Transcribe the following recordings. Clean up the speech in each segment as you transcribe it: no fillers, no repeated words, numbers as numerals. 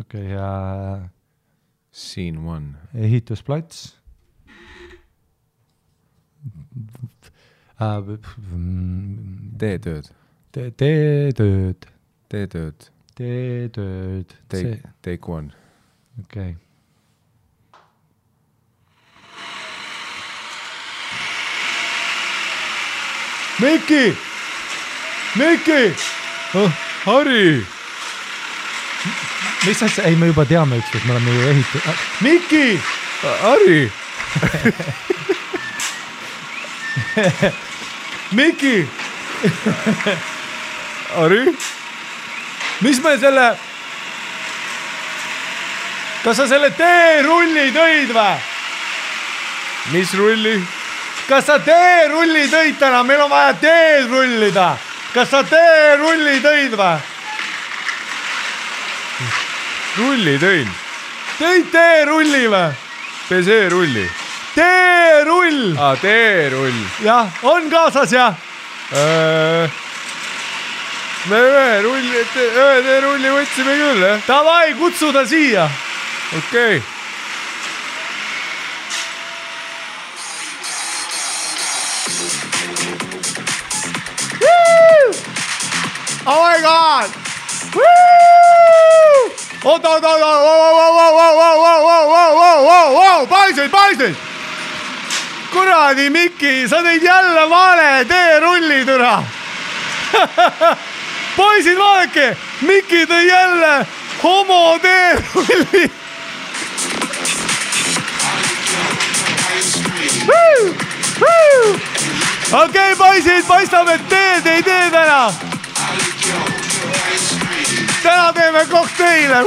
Okei, ja Scene 1. ehitusplats. Teetööd. Teetööd. Teetööd. Teetööd. Take 1. Okei. Miki! Harri! Mis asja? Ei, me juba teame ükskord, me oleme ju ehitud. Miki! Harri! Miki! Harri? Mis me selle... Kas sa selle teerulli tõid või? Mis rulli? Kas sa teerulli tõid täna? Meil on vaja teed rullida. Kas sa teerulli tõid või? Rulli tõin. Tõid teerulli või? PC-rulli. Teerull! Teerull. Jah, on kaasas jah? Me ühe teerulli võtsime küll, jah? Davai, kutsu ta siia. Okei. Oh my god! Oota! Paisid! Kuradi Miki, sa tõid jälle vale teerulli türa. Poisid, vaadake, Miki tõi jälle homo teerulli. Okei, poisid, paistab, et teed ei tee täna. Täna teeme kokteile.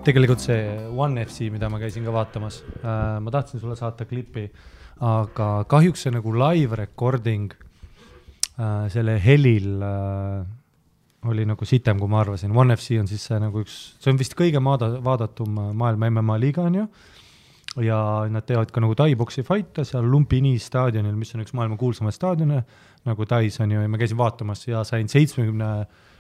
Tegelikult see One FC, mida ma käisin ka vaatamas, ma tahtsin sulle saata klipi, aga kahjuks see nagu live recording selle helil oli nagu sitem, kui ma arvasin. One FC on siis see nagu see on vist kõige vaadatum maailma MMA liiga on ju, ja nad teevad ka nagu Thai-boksi fight'e seal Lumpini staadionil, mis on üks maailma kuulsamaid staadione, nagu Thais on ju, ja ma käisin vaatamas ja sain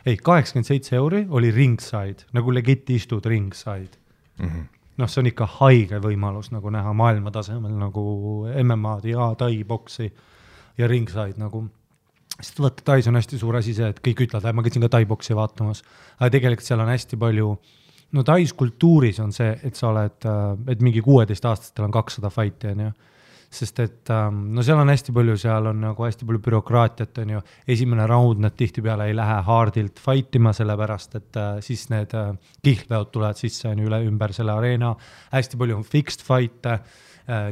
87 euri oli ringside, nagu legit istud ringside. Noh, see on ikka haige võimalus nagu näha maailma tasemel nagu MMA-d ja Thai-boksi ja ringside nagu. Sest vaata, Thais on hästi suur asi see, et kõik ütlevad, ma käisin ka Thai-boksi vaatamas, aga tegelikult seal on hästi palju, no Thais kultuuris on see, et sa oled, et mingi 16-aastastel on 200 fighti, on ju. Sest et no seal on hästi palju, seal on nagu hästi palju bürokraatiat, on ju. Esimene round nad tihtipeale ei lähe hardilt fightima, sellepärast, et siis need kihlveod tulevad sisse on üle ümber selle areena. Hästi palju on fixed fight'e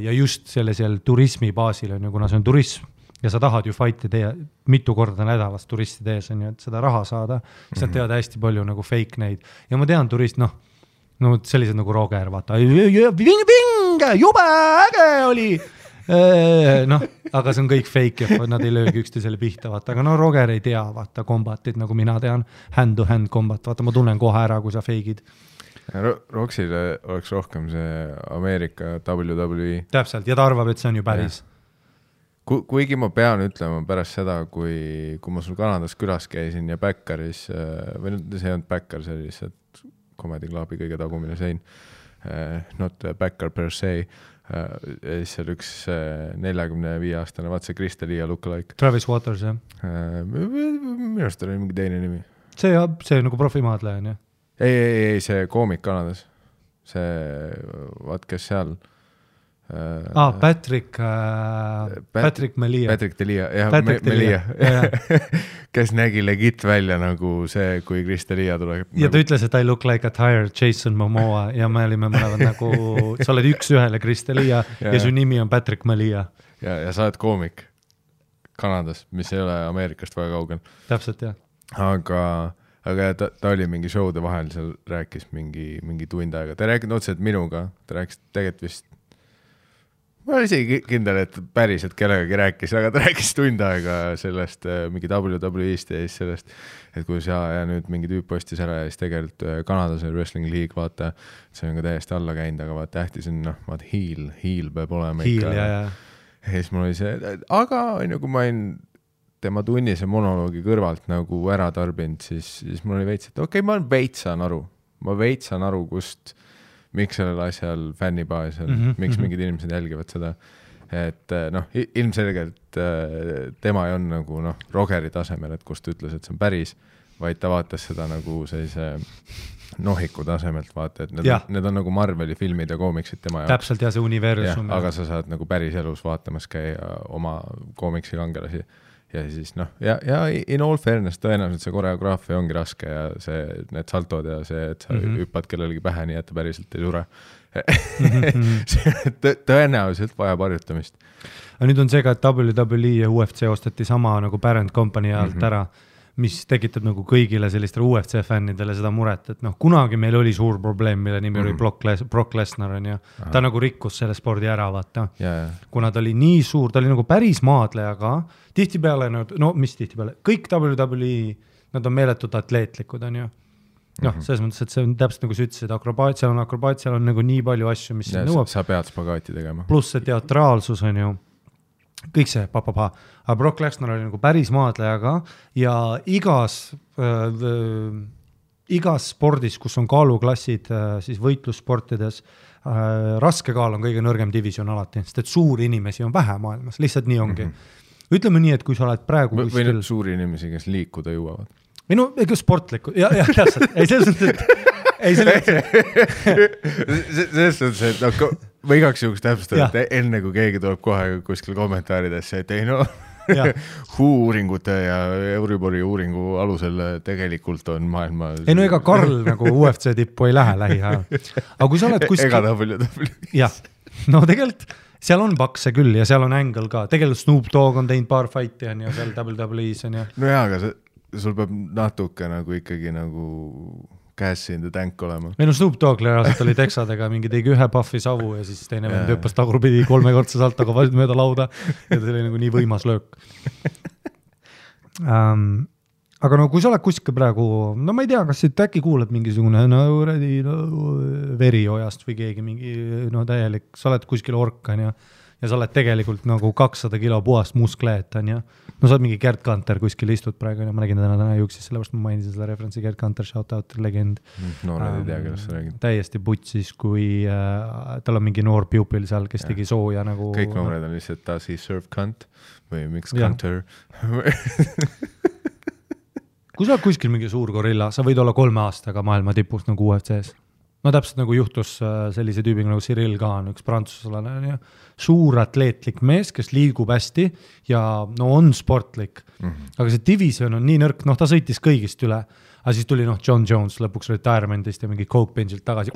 ja just sellisel turismi baasil on ju, kuna see on turism ja sa tahad ju fight'i teha mitu korda nädalas turisti tees on ju, et seda raha saada. Siis nad teevad hästi palju nagu fake neid. Ja ma tean turist, no sellised nagu Roger, vaata, jube äge oli. Noh, aga see on kõik fake ja nad ei löögi üksteisele pihta, vaata, aga no Roger ei tea, vaata, kombatit, nagu mina tean, hand-to-hand kombat, vaata, ma tunnen kohe ära, kui sa feigid. Roxile oleks rohkem see Ameerika WWE. Täpselt, ja ta arvab, et see on ju päris. Kuigi ma pean ütlema pärast seda, kui ma sul Kanadas külas käisin ja Backeris, või see ei olnud Backer, see oli lihtsalt Comedy Clubi kõige tagumine sein. not a backer per se. See oli üks 45-aastane, vaat see Chris D'Elia lookalike. Travis Waters, jah? Minu arust oli mingi teine nimi. See nagu profimaadleja on, jah? Ei, see koomik Kanadas. See, vaat kes seal... Patrick Melia. Patrick D'Elia, jah, Melia. Kes nägi legit välja nagu see, kui Chris D'Elia tuleb. Ja ta ütles, et I look like a tired Jason Momoa ja me olime mõlemad nagu, sa oled üks ühele Chris D'Elia ja su nimi on Patrick Melia. Ja sa oled koomik Kanadas, mis ei ole Ameerikast väga kaugel. Täpselt, jah. Aga ta oli mingi showde vahel, seal rääkis mingi tund aega. Ta rääkis otseselt minuga, ta rääkis tegelikult vist ma olen isegi kindel, et päriselt kellegagi rääkis, aga ta rääkis tund aega sellest mingi WWE-st ja siis sellest, et kui ja nüüd mingi tüüp postis ära ja siis tegelikult Kanadas on Wrestling League, vaata, see on ka täiesti alla käinud, aga vaata tähtis on, vaata heel peab olema ikka. Ja siis mul oli see, aga kui ma olin tema tunnise monoloogi kõrvalt nagu ära tarbinud, siis mul oli veits, et okei, ma veitsan aru, kust miks sellel asjal fännibaasel, miks mingid inimesed jälgivad seda, et ilmselgelt tema ei on nagu Rogeri tasemel, et kust ütles, et see on päris, vaid ta vaatas seda nagu sellise nohiku tasemelt, vaata, et need on nagu Marveli filmid ja koomiksid tema jaoks. Täpselt, ja see universum. Ja, aga sa saad nagu päris elus vaatamas käia oma koomiksi kangelasi. Ja siis ja in all fairness tõenäoliselt see koreograafia ongi raske ja need saltod ja see, et sa hüppad kellelegi pähe nii, et ta päriselt ei sure. Tõenäoliselt vajab harjutamist. Aga nüüd on see ka, et WWE ja UFC ostati sama nagu parent company alt ära, mis tekitab nagu kõigile sellistele UFC fännidele seda muret, et kunagi meil oli suur probleem, mille nimi oli Brock Lesnar on ja ta nagu rikkus selle spordi ära, vaata. Kuna ta oli nii suur, ta oli nagu päris maadlejaga, tihtipeale, mis tihtipeale, kõik WWE, nad on meeletud atleetlikud, on ju. Selles mõttes, et see on täpselt nagu sa ütlesid, akrobaat, seal on nagu nii palju asju, mis nõuab. Sa pead spagaati tegema. Pluss see teatraalsus on ju, kõik see, aga Brock Lesnar oli nagu päris maadlejaga ja igas spordis, kus on kaaluklassid, siis võitlussportides, raske kaal on kõige nõrgem division alati, sest et suuri inimesi on vähe maailmas, lihtsalt nii ongi. Ütleme nii, et kui sa oled praegu või need suuri inimesi, kes liikuda jõuavad. Või ega sportlikud, jah, täpselt. Ei, selles mõttes, selles mõttes, et või igaks juhuks täpsustada, et enne kui keegi tuleb kohe kuskil kommentaaridesse, et ei uuringute ja Euribori uuringu alusel tegelikult on maailma... Ei ega Karl nagu UFC tippu ei lähe lähiajal. Aga kui sa oled kuskil... Ega WWE. Jah, tegelikult seal on pakse küll ja seal on Angle ka. Tegelikult Snoop Dogg on teinud paar fighti on ja seal WWE-s on ja... No jaa, aga sul peab natuke nagu ikkagi nagu... käes in the tank olema. Meil on Snoop Dogg reaalselt oli teksadega, mingi tegi ühe puffi savu ja siis teine vend hüppas tagurpidi 3 korda saltoga mööda lauda ja ta oli nagu nii võimas löök. Aga kui sa oled kuskil praegu, ma ei tea, kas siit äkki kuulad mingisugune veriojast või keegi mingi täielik, sa oled kuskil orkan ja sa oled tegelikult nagu 200 kilo puhast muskleet on ja sa oled mingi Gerd Kanter kuskil istud praegu ja ma nägin täna juuksis, sellepärast ma mainisin seda referentsi Gerd Kanter, shout-out, legend. Noored ei tea, kellest sa räägid. Täiesti putsis, kui tal on mingi noor pupil seal, kes tegi sooja nagu... Kõik noored on lihtsalt does he serve cunt või miks Kanter. Kui sa oled kuskil mingi suur gorilla, sa võid olla 3 aastaga maailma tipust nagu UFC-s. No täpselt nagu juhtus sellise tüübiga nagu Cyril Kahn, üks prantsuslane, suur atleetlik mees, kes liigub hästi ja on sportlik. Aga see division on nii nõrk, ta sõitis kõigist üle, aga siis tuli John Jones lõpuks retirementist ja mingi Coke benchilt tagasi,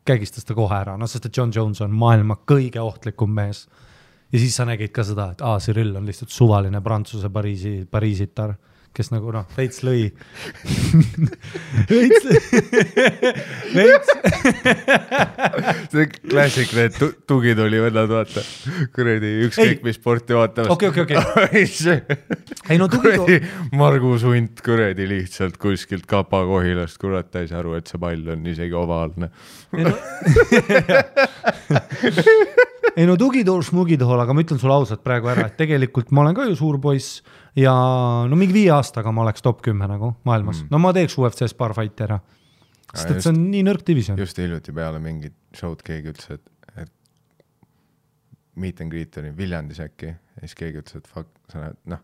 kägistas ta kohe ära, sest et John Jones on maailma kõige ohtlikum mees. Ja siis sa nägid ka seda, et Cyril on lihtsalt suvaline Prantsuse Pariisitar, kes nagu veits lõi. See klassik, need tugid oli vennad, vaata. Kuredi ükskõik mis sporti vaatamas. Okei. Ei kuredi Margus Hunt kuredi lihtsalt kuskilt Kapa-Kohilast, kurat, ta ei saa aru, et see pall on isegi ovaalne. Ei tugitool, smugitool, aga ma ütlen sulle ausalt praegu ära, et tegelikult ma olen ka ju suur poiss ja mingi 5 aastaga ma oleks top 10 nagu maailmas. Ma teeks UFC-s paar fighti ära. sest et see on nii nõrk division. Just hiljuti peale mingit show'd keegi ütles, et meet and greet oli Viljandis äkki ja siis keegi ütles, et fuck, sa näed,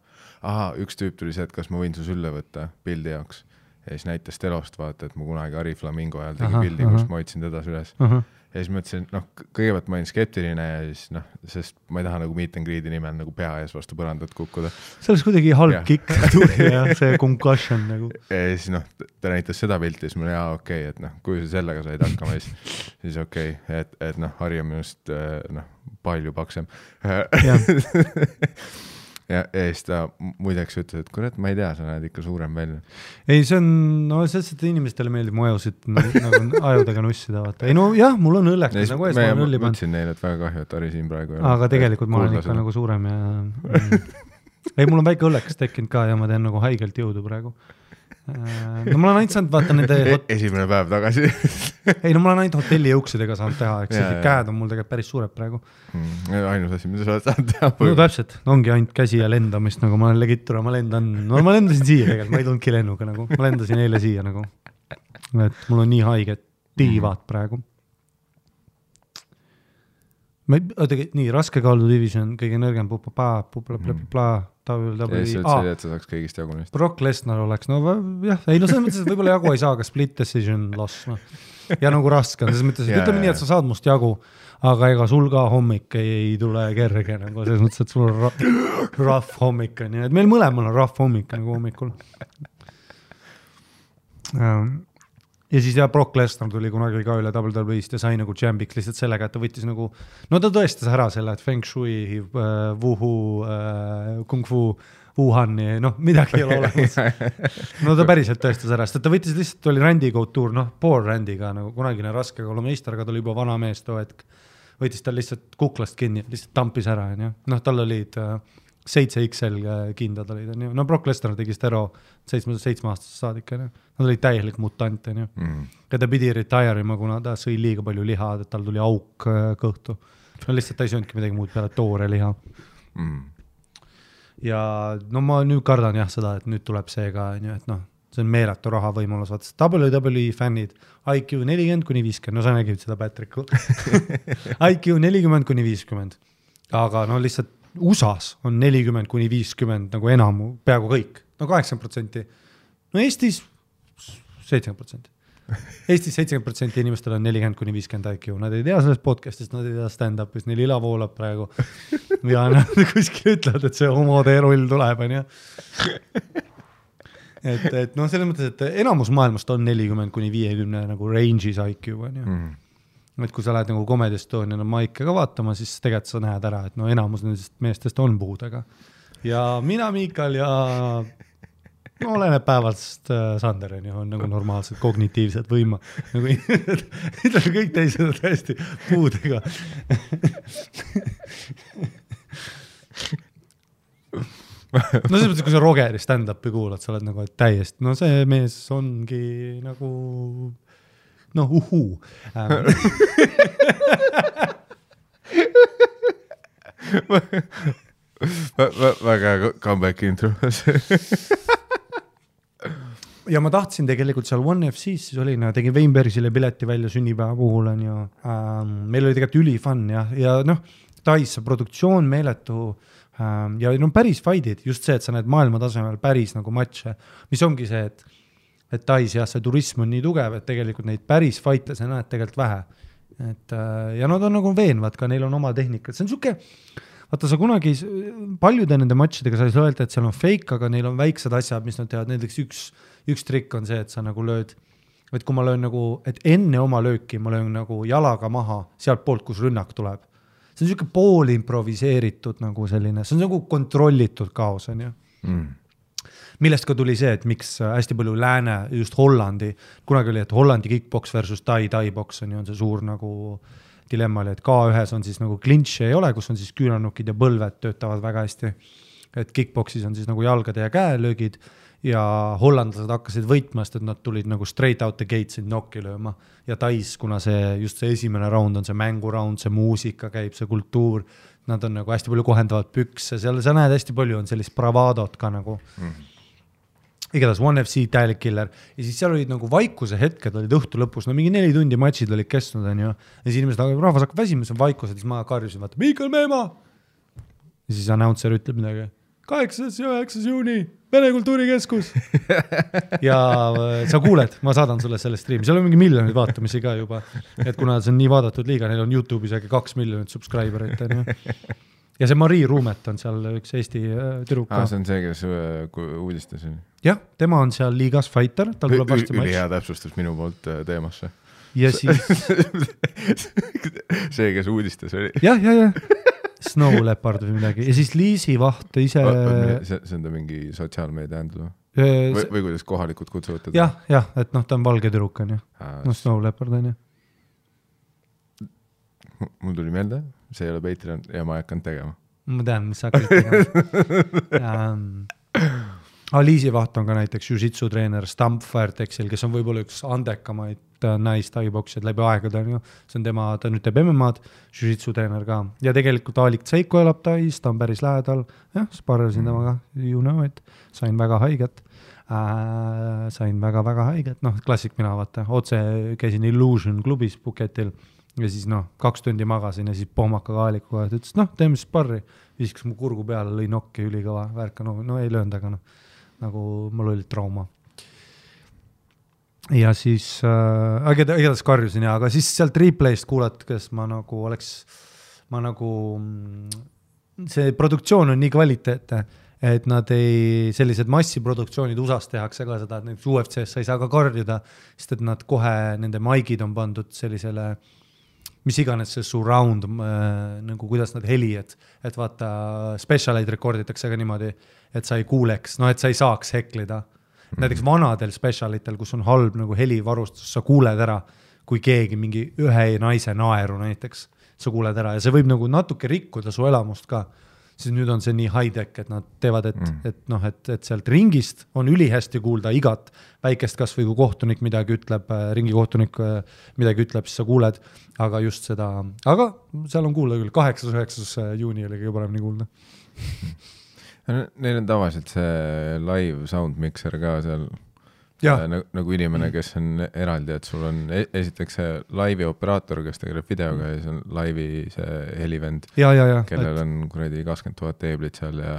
üks tüüp tuli see, et kas ma võin su sülle võtta pildi jaoks ja siis näitas telost vaata, et ma kunagi Ari Flamingo ajal tegi pildi, kus ma hoidsin teda üles ja siis ma ütlesin, kõigepealt ma olin skeptiline ja siis sest ma ei taha nagu meet and greet'i nimel nagu pea ees vastu põrandat kukkuda. See oleks kuidagi halb kikk tuli ja see concussion nagu. Ja siis ta näitas seda pilti ja siis mul okei, et kui sa sellega said hakkama, siis okei, et Harri on minust palju paksem. Ja siis ta muideks ütles, et kurat, ma ei tea, sa näed ikka suurem välja. Ei, see on, sellest, et inimestele meeldib mu ajusid nagu ajudega nussida, vaata. Ei jah, mul on õlleks, nagu ees ma olen õlli pannud. Mõtlesin neile, et väga kahju, et Harri siin praegu aga tegelikult ma olen ikka nagu suurem ja ei, mul on väike õlleks tekkinud ka ja ma teen nagu haigelt jõudu praegu. No mul on ainult saanud vaata nende esimene päev tagasi. Ei, no mul on ainult hotelli jõuksidega saanud teha, eks käed on mul tegelikult päris suured praegu. Ainus asi, mida sa oled saanud teha. No täpselt, ongi ainult käsi ja lendamist, nagu ma olen legittura, ma lendasin siia tegelikult, ma ei tulnudki lennuga nagu, ma lendasin eile siia nagu, et mul on nii haiged tiivad praegu. Nii, raskekaalu division, kõige nõrgem et sa saaks kõigist jagunist. Brock Lesnar oleks, jah, ei selles mõttes, et võib-olla jagu ei saa, aga split decision loss. Ja nagu raske on, selles mõttes, et ütleme nii, et sa saad must jagu, aga ega sul ka hommik ei tule kerge, nagu selles mõttes, et sul on rough hommik, nii et meil mõlemal on rough hommik nagu hommikul. Ja siis Brock Lesnar tuli kunagi ka üle WWE-st ja sai nagu champiks lihtsalt sellega, et ta võttis nagu, ta tõestas ära selle, et Feng Shui, Wuhu, Kung Fu, Wuhani, midagi ei ole olemas. Ta päriselt tõestas ära, sest ta võttis lihtsalt, oli Randy Couture, poor Randyga, nagu kunagine raske kolumeister, aga ta oli juba vana mees too hetk. Võttis tal lihtsalt kuklast kinni, lihtsalt tampis ära, tal olid 7XL kindad olid, Brock Lesnar tegi stero 7-aastasest saadik, nad olid täielik mutant, ja ta pidi retire'ima, kuna ta sõi liiga palju liha, et tal tuli auk kõhtu. Lihtsalt ta ei sööndki midagi muud peale toore liha. Ja ma nüüd kardan seda, et nüüd tuleb see ka, et see on meeletu raha võimalus, vaata WWE fännid, IQ 40-50, sa nägid seda Patricku. IQ 40-50, aga lihtsalt USAs on 40-50 nagu enamu, peaaegu kõik, 80%. Eestis 70%. Eestis 70% inimestel on 40-50 IQ, nad ei tea sellest podcastist, nad ei tea stand-upist, neil ila voolab praegu. Ja nad kuskil ütlevad, et see homode roll tuleb, et selles mõttes, et enamus maailmast on 40-50 nagu range'is IQ, et kui sa lähed nagu Comedy Estoniana maike ka vaatama, siis tegelikult sa näed ära, et enamus nendest meestest on puudega. Ja mina, Miikal ja oleneb päevast Sandereni on nagu normaalsed kognitiivsed võima. Nagu kõik teised on täiesti puudega. Selles mõttes, kui sa Rogeri stand-upi kuulad, sa oled nagu täiesti, see mees ongi nagu uhuu. Väga comeback intro. Ja ma tahtsin tegelikult seal One FC-s, siis olin, tegin Weinbergsile pileti välja sünnipäeva puhul, meil oli tegelikult ülifun ja Tais produktsioon meeletu ja päris fight'id, just see, et sa näed maailma tasemel päris nagu matše, mis ongi see, et Tais see turism on nii tugev, et tegelikult neid päris fight'e sa näed tegelikult vähe. Ja nad on nagu veenvad ka, neil on oma tehnikat. See on siuke, vaata sa kunagi paljude nende matšidega sa ei saa öelda, et seal on fake, aga neil on väiksed asjad, mis nad teevad. Näiteks üks trikk on see, et sa nagu lööd, et kui ma löön nagu, et enne oma lööki ma löön nagu jalaga maha sealt poolt, kus rünnak tuleb. See on siuke pool improviseeritud nagu selline, see on nagu kontrollitud kaos, on ju. Millest ka tuli see, et miks hästi palju lääne, just Hollandi, kunagi oli, et Hollandi kickbox versus Tai-box on see suur nagu dilemma oli, et K1-s on siis nagu clinch ei ole, kus on siis küünanukid ja põlved töötavad väga hästi. Et kickboxis on siis nagu jalgade ja käelöögid ja hollandlased hakkasid võitmast, et nad tulid nagu straight out the gates in nokki lööma. Ja Tais, kuna just see esimene round on see mänguraund, see muusika käib, see kultuur, nad on nagu hästi palju kohendavad pükse, seal sa näed hästi palju on sellist bravadot ka nagu. igatahes One FC täielik killer ja siis seal olid nagu vaikuse hetked olid õhtu lõpus, no mingi 4 tundi matšid olid kestnud, on ju. Ja siis inimesed, rahvas hakkab väsima, see on vaikused, siis ma karjusin, vaata, Miikal Meemaa! Ja siis announcer ütleb midagi, 8. ja 9. juuni, Vene Kultuurikeskus. Ja sa kuuled, ma saadan sulle selle streami, seal on mingi miljonid vaatamisi ka juba, et kuna see on nii vaadatud liiga, neil on YouTube'is äkki 2 miljonit subscriberit, on ju. Ja see Marii Ruumet on seal üks Eesti tüdruka. See on see, kes uudistas. Jah, tema on seal liigas fighter, tal tuleb varsti matš. Ülihea täpsustus minu poolt teemasse. Ja siis... see, kes uudistas oli. Jah. Snow Leopard või midagi. Ja siis Liisi Vaht ise... See on ta mingi sotsiaalmeedia händlu? Või kuidas kohalikud kutsuvad teda? Jah, et noh, ta on valge tüdruk, on ju. No Snow Leopard, on ju. Mul tuli meelde, see ei ole Patreon ja ma ei hakanud tegema. Ma tean, mis sa hakkad tegema. Liisi Vaht on ka näiteks jiu-jitsu treener Stamp Firetexil, kes on võib-olla üks andekamaid naistaiboksijad läbi aegade. See on tema, ta nüüd teeb MMA-d, jiu-jitsu treener ka. Ja tegelikult Alik Tseiko elab Tais, ta on päris lähedal. Jah, sparrasin temaga, you know it. Sain väga haiget. Väga haiget. Noh, klassik mina vaata. Otse käisin Illusion klubis Puketil. Ja siis 2 tundi magasin ja siis pohmakaga Aalikuga, et ütles, teeme sparri. Viskas mu kurgu peale, lõi nokki ülikõva värka, no ei löönud, aga nagu mul oli trauma. Ja siis, igatahes karjusin aga siis sealt replayst kuulates ma see produktsioon on nii kvaliteetne, et nad sellised massiproduktsioonid USAs tehakse ka seda, et UFC-s sa ei saa ka karjuda, sest et nad kohe, nende maigid on pandud sellisele mis iganes see surround, nagu kuidas nad heli, et vaata, specialeid rekorditakse ka niimoodi, et sa ei kuuleks, et sa ei saaks heklida. Näiteks vanadel specialitel, kus on halb nagu helivarustus, sa kuuled ära, kui keegi mingi ühe naise naeru näiteks, sa kuuled ära ja see võib nagu natuke rikkuda su elamust ka. Siis nüüd on see nii high-tech, et nad teevad, et sealt ringist on ülihästi kuulda igat väikest kas või kui kohtunik midagi ütleb, ringikohtunik midagi ütleb, siis sa kuuled, aga just seda, aga seal on kuulda küll, 8.9. juuni oli kõige paremini kuulda. Neil on tavaliselt see live sound mixer ka seal, nagu inimene, kes on eraldi, et sul on esiteks see laivi operaator, kes tegeleb videoga ja see on laivi see helivend, kellel on kuradi 20 000 teeblit seal ja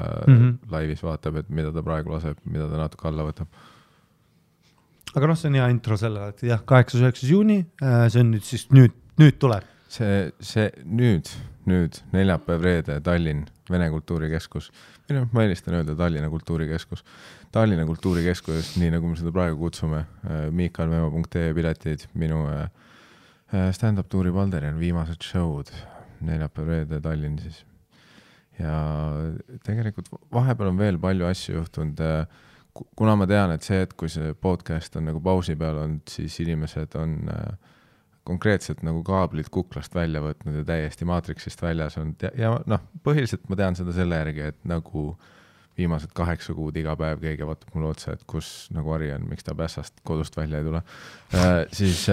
laivis vaatab, et mida ta praegu laseb, mida ta natuke alla võtab. Aga see on hea intro selle, et 8.9. juuni, see on nüüd siis nüüd tuleb. See nüüd neljapäev reede Tallinn, Vene Kultuurikeskus. Ma eelistan öelda Tallinna Kultuurikeskus. Tallinna Kultuurikeskus, nii nagu me seda praegu kutsume, miikalmeemo.ee piletid, minu stand-up tuuri Valderian viimased show'd, neljapäev reede Tallinn siis. Ja tegelikult vahepeal on veel palju asju juhtunud, kuna ma tean, et see, et kui see podcast on nagu pausi peal olnud, siis inimesed on konkreetselt nagu kaablid kuklast välja võtnud ja täiesti maatriksist väljas on. Ja põhiliselt ma tean seda selle järgi, et nagu viimased 8 kuud iga päev keegi vaatab mulle otsa, et kus nagu Ari on, miks ta pässast kodust välja ei tule. Siis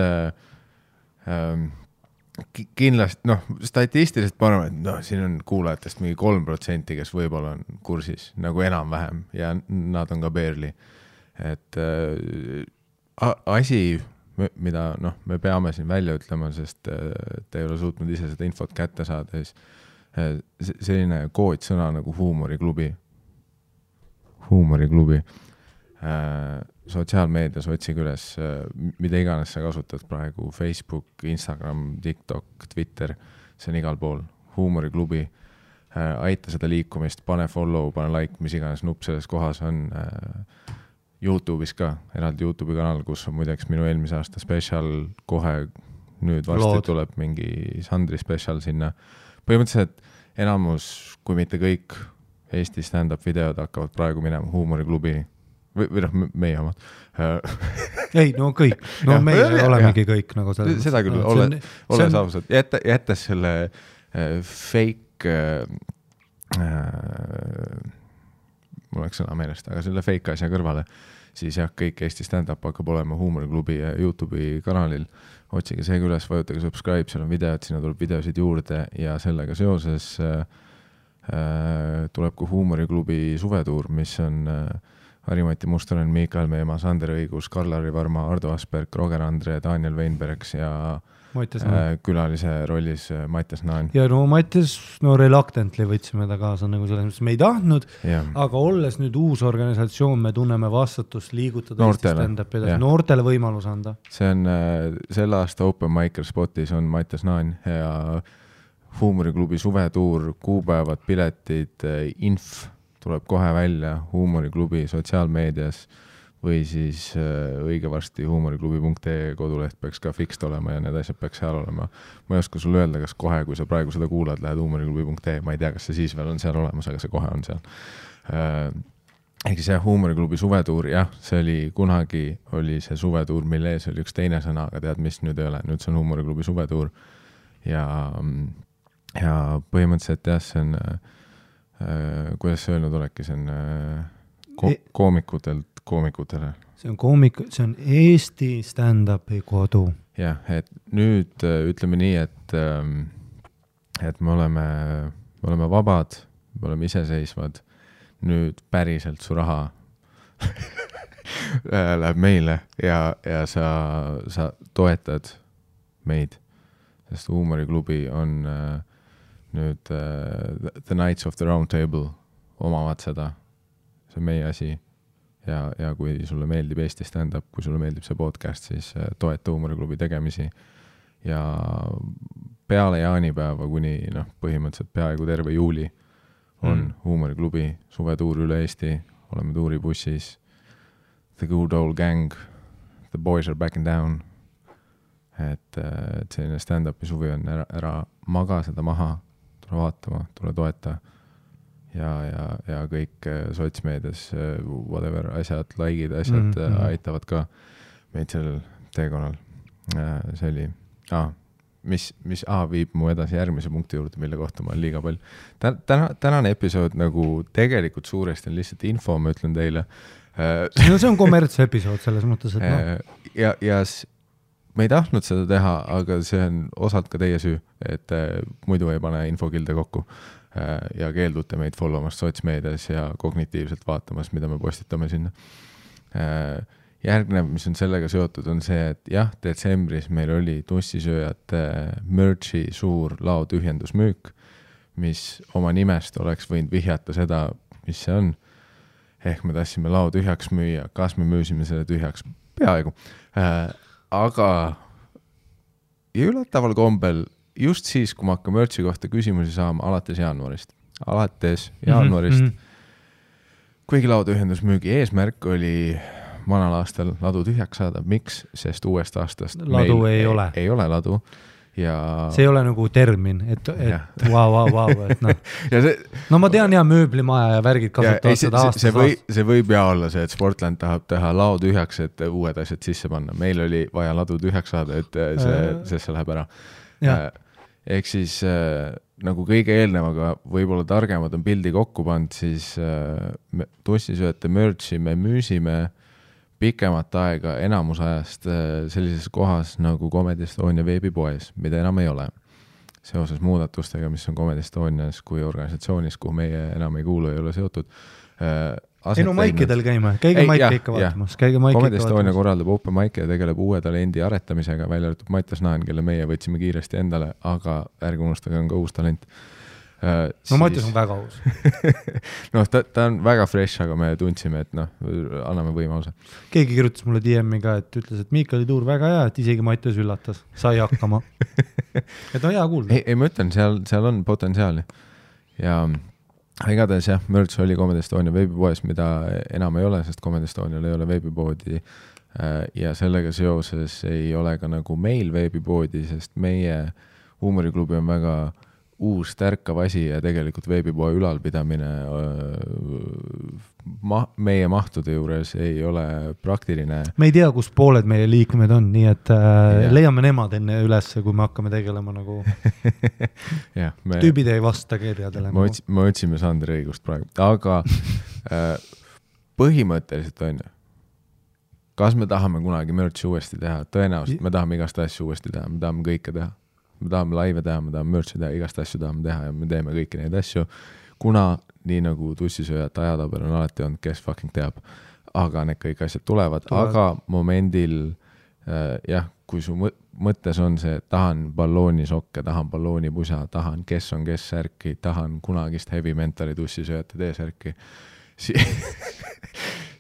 kindlasti, statistiliselt ma arvan, et siin on kuulajatest mingi 3%, kes võib-olla on kursis nagu enam-vähem ja nad on ka barely. Et asi, mida me peame siin välja ütlema, sest te ei ole suutnud ise seda infot kätte saada, siis selline koodsõna nagu huumoriklubi. Sotsiaalmeedias otsige üles, mida iganes sa kasutad praegu, Facebook, Instagram, TikTok, Twitter, see on igal pool, huumoriklubi. Aita seda liikumist, pane follow, pane like, mis iganes nupp selles kohas on. YouTube'is ka, eraldi YouTube'i kanal, kus on muideks minu eelmise aasta special, kohe nüüd varsti tuleb mingi Sandri special sinna. Põhimõtteliselt enamus, kui mitte kõik Eesti stand-up videod hakkavad praegu minema huumoriklubi või meie omad. Ei, kõik. Meie olemegi kõik nagu seda. Seda küll, ole saavusad. Jättes selle fake mul oleks sõna meelest, aga selle fake asja kõrvale, siis kõik Eesti stand-up hakkab olema huumoriklubi ja YouTube'i kanalil. Otsige see üles, vajutage subscribe, seal on videod, sinna tuleb videosid juurde ja sellega seoses tuleb ka huumoriklubi suvetuur, mis on Harimati Mustonen, Miikael Meemaa, Sander Õigus, Karl-Harri Varma, Ardo Asperg, Roger Andre, Daniel Weinbergs ja külalise rollis Mattias Naan. Ja no Mattias, reluctantly võtsime ta kaasa nagu selles mõttes, me ei tahtnud, aga olles nüüd uus organisatsioon, me tunneme vastutust liigutada noortele, noortele võimalus anda. See on selle aasta Open Micer Spotis on Mattias Naan ja Huumoriklubi suvetuur, kuupäevad, piletid, inf tuleb kohe välja Huumoriklubi sotsiaalmeedias või siis õige varsti huumoriklubi.ee koduleht peaks ka fixed olema ja need asjad peaks seal olema. Ma ei oska sulle öelda, kas kohe, kui sa praegu seda kuulad, lähed huumoriklubi.ee, ma ei tea, kas see siis veel on seal olemas, aga see kohe on seal. Ehk see Huumoriklubi suvetuur, see oli kunagi oli see suvetuur, mille ees oli üks teine sõna, aga tead, mis nüüd ei ole, nüüd see on Huumoriklubi suvetuur ja põhimõtteliselt see on kuidas see öelnud olekki, see on koomikutele. See on Eesti stand-upi kodu. Jah, et nüüd ütleme nii, et me oleme vabad, me oleme iseseisvad, nüüd päriselt su raha läheb meile ja sa toetad meid, sest Huumoriklubi on nüüd The Knights of the Round Table omavad seda, see on meie asi ja kui sulle meeldib Eesti stand-up, kui sulle meeldib see podcast, siis toeta Huumoriklubi tegemisi ja peale jaanipäeva kuni põhimõtteliselt peaaegu terve juuli on Huumoriklubi suvetuur üle Eesti, oleme tuuribussis, The Good Old Gang, The Boys Are Backing Down, et selline stand-upi suvi on ära maga seda maha, tule vaatama, tule toeta ja kõik sotsmeedias whatever asjad, like'id, asjad aitavad ka meid sellel teekonnal. See oli, mis viib mu edasi järgmise punkti juurde, mille kohta ma olen liiga palju. Tänane episood nagu tegelikult suuresti on lihtsalt info, ma ütlen teile. No see on kommertse episood selles mõttes, et ja me ei tahtnud seda teha, aga see on osalt ka teie süü, et muidu ei pane infokilde kokku ja keeldute meid followmast sotsmeedias ja kognitiivselt vaatamas, mida me postitame sinna. Järgnev, mis on sellega seotud, on see, et detsembris meil oli tussisööjate merchi suur laotühjendusmüük, mis oma nimest oleks võinud vihjata seda, mis see on. Ehk me tahtsime lao tühjaks müüa, kas me müüsime selle tühjaks? Peaaegu. Aga üllataval kombel just siis, kui ma hakkan merchi kohta küsimusi saama alates jaanuarist, kuigi laotühjendusmüügi eesmärk oli vanal aastal ladu tühjaks saada. Miks? Sest uuest aastast ladu ei ole ladu. Ja see ei ole nagu termin, et vau, et no ma tean mööblimaja ja värgid kasutavad seda aastast. See võib olla see, et Sportland tahab teha lao tühjaks, et uued asjad sisse panna. Meil oli vaja ladu tühjaks saada, et see läheb ära. Ehk siis nagu kõige eelnevaga võib-olla targemad on pildi kokku pand, siis tussisööjate merchi me müüsime pikemat aega enamus ajast sellises kohas nagu Comedy Estonia veebipoes, mida enam ei ole. Seoses muudatustega, mis on Comedy Estonias kui organisatsioonis, kuhu meie enam ei kuulu, ei ole seotud. Maikidel käime, käige Maike ikka vaatamas. Comedy Estonia korraldab open Maike ja tegeleb uue talendi aretamisega, välja arvatud Mattias Naan, kelle meie võtsime kiiresti endale, aga ärge unustage, on ka uus talent. Mattias on väga uus. Ta on väga fresh, aga me tundsime, et anname võimaluse. Keegi kirjutas mulle DM-i ka, et ütles, et Miikali tuur väga hea, et isegi Mattias üllatas, sai hakkama. Et on hea kuulda. Ei, ma ütlen, seal on potentsiaali. Ja igatahes merch oli Comedy Estonia veebipoes, mida enam ei ole, sest Comedy Estonial ei ole veebipoodi ja sellega seoses ei ole ka nagu meil veebipoodi, sest meie Huumoriklubi on väga uus tärkav asi ja tegelikult veebipoe ülalpidamine meie mahtude juures ei ole praktiline. Me ei tea, kus pooled meie liikmed on, nii et leiame nemad enne ülesse, kui me hakkame tegelema nagu tüübid ei vasta kirjadele. Me otsime Sander õigust praegu, aga põhimõtteliselt on ju, kas me tahame kunagi merchi uuesti teha? Tõenäoliselt me tahame igast asju uuesti teha, me tahame kõike teha. Me tahame laive teha, me tahame merchi teha, igast asju tahame teha ja me teeme kõiki neid asju, kuna nii nagu tussisööjate ajatabel on alati olnud, kes fucking teab. aga need kõik asjad tulevad. Aga momendil jah, kui su mõttes on see, tahan balloonisokke, tahan balloonipusa, tahan kes on kes särki, tahan kunagist heavy mentali tussisööjate T-särki,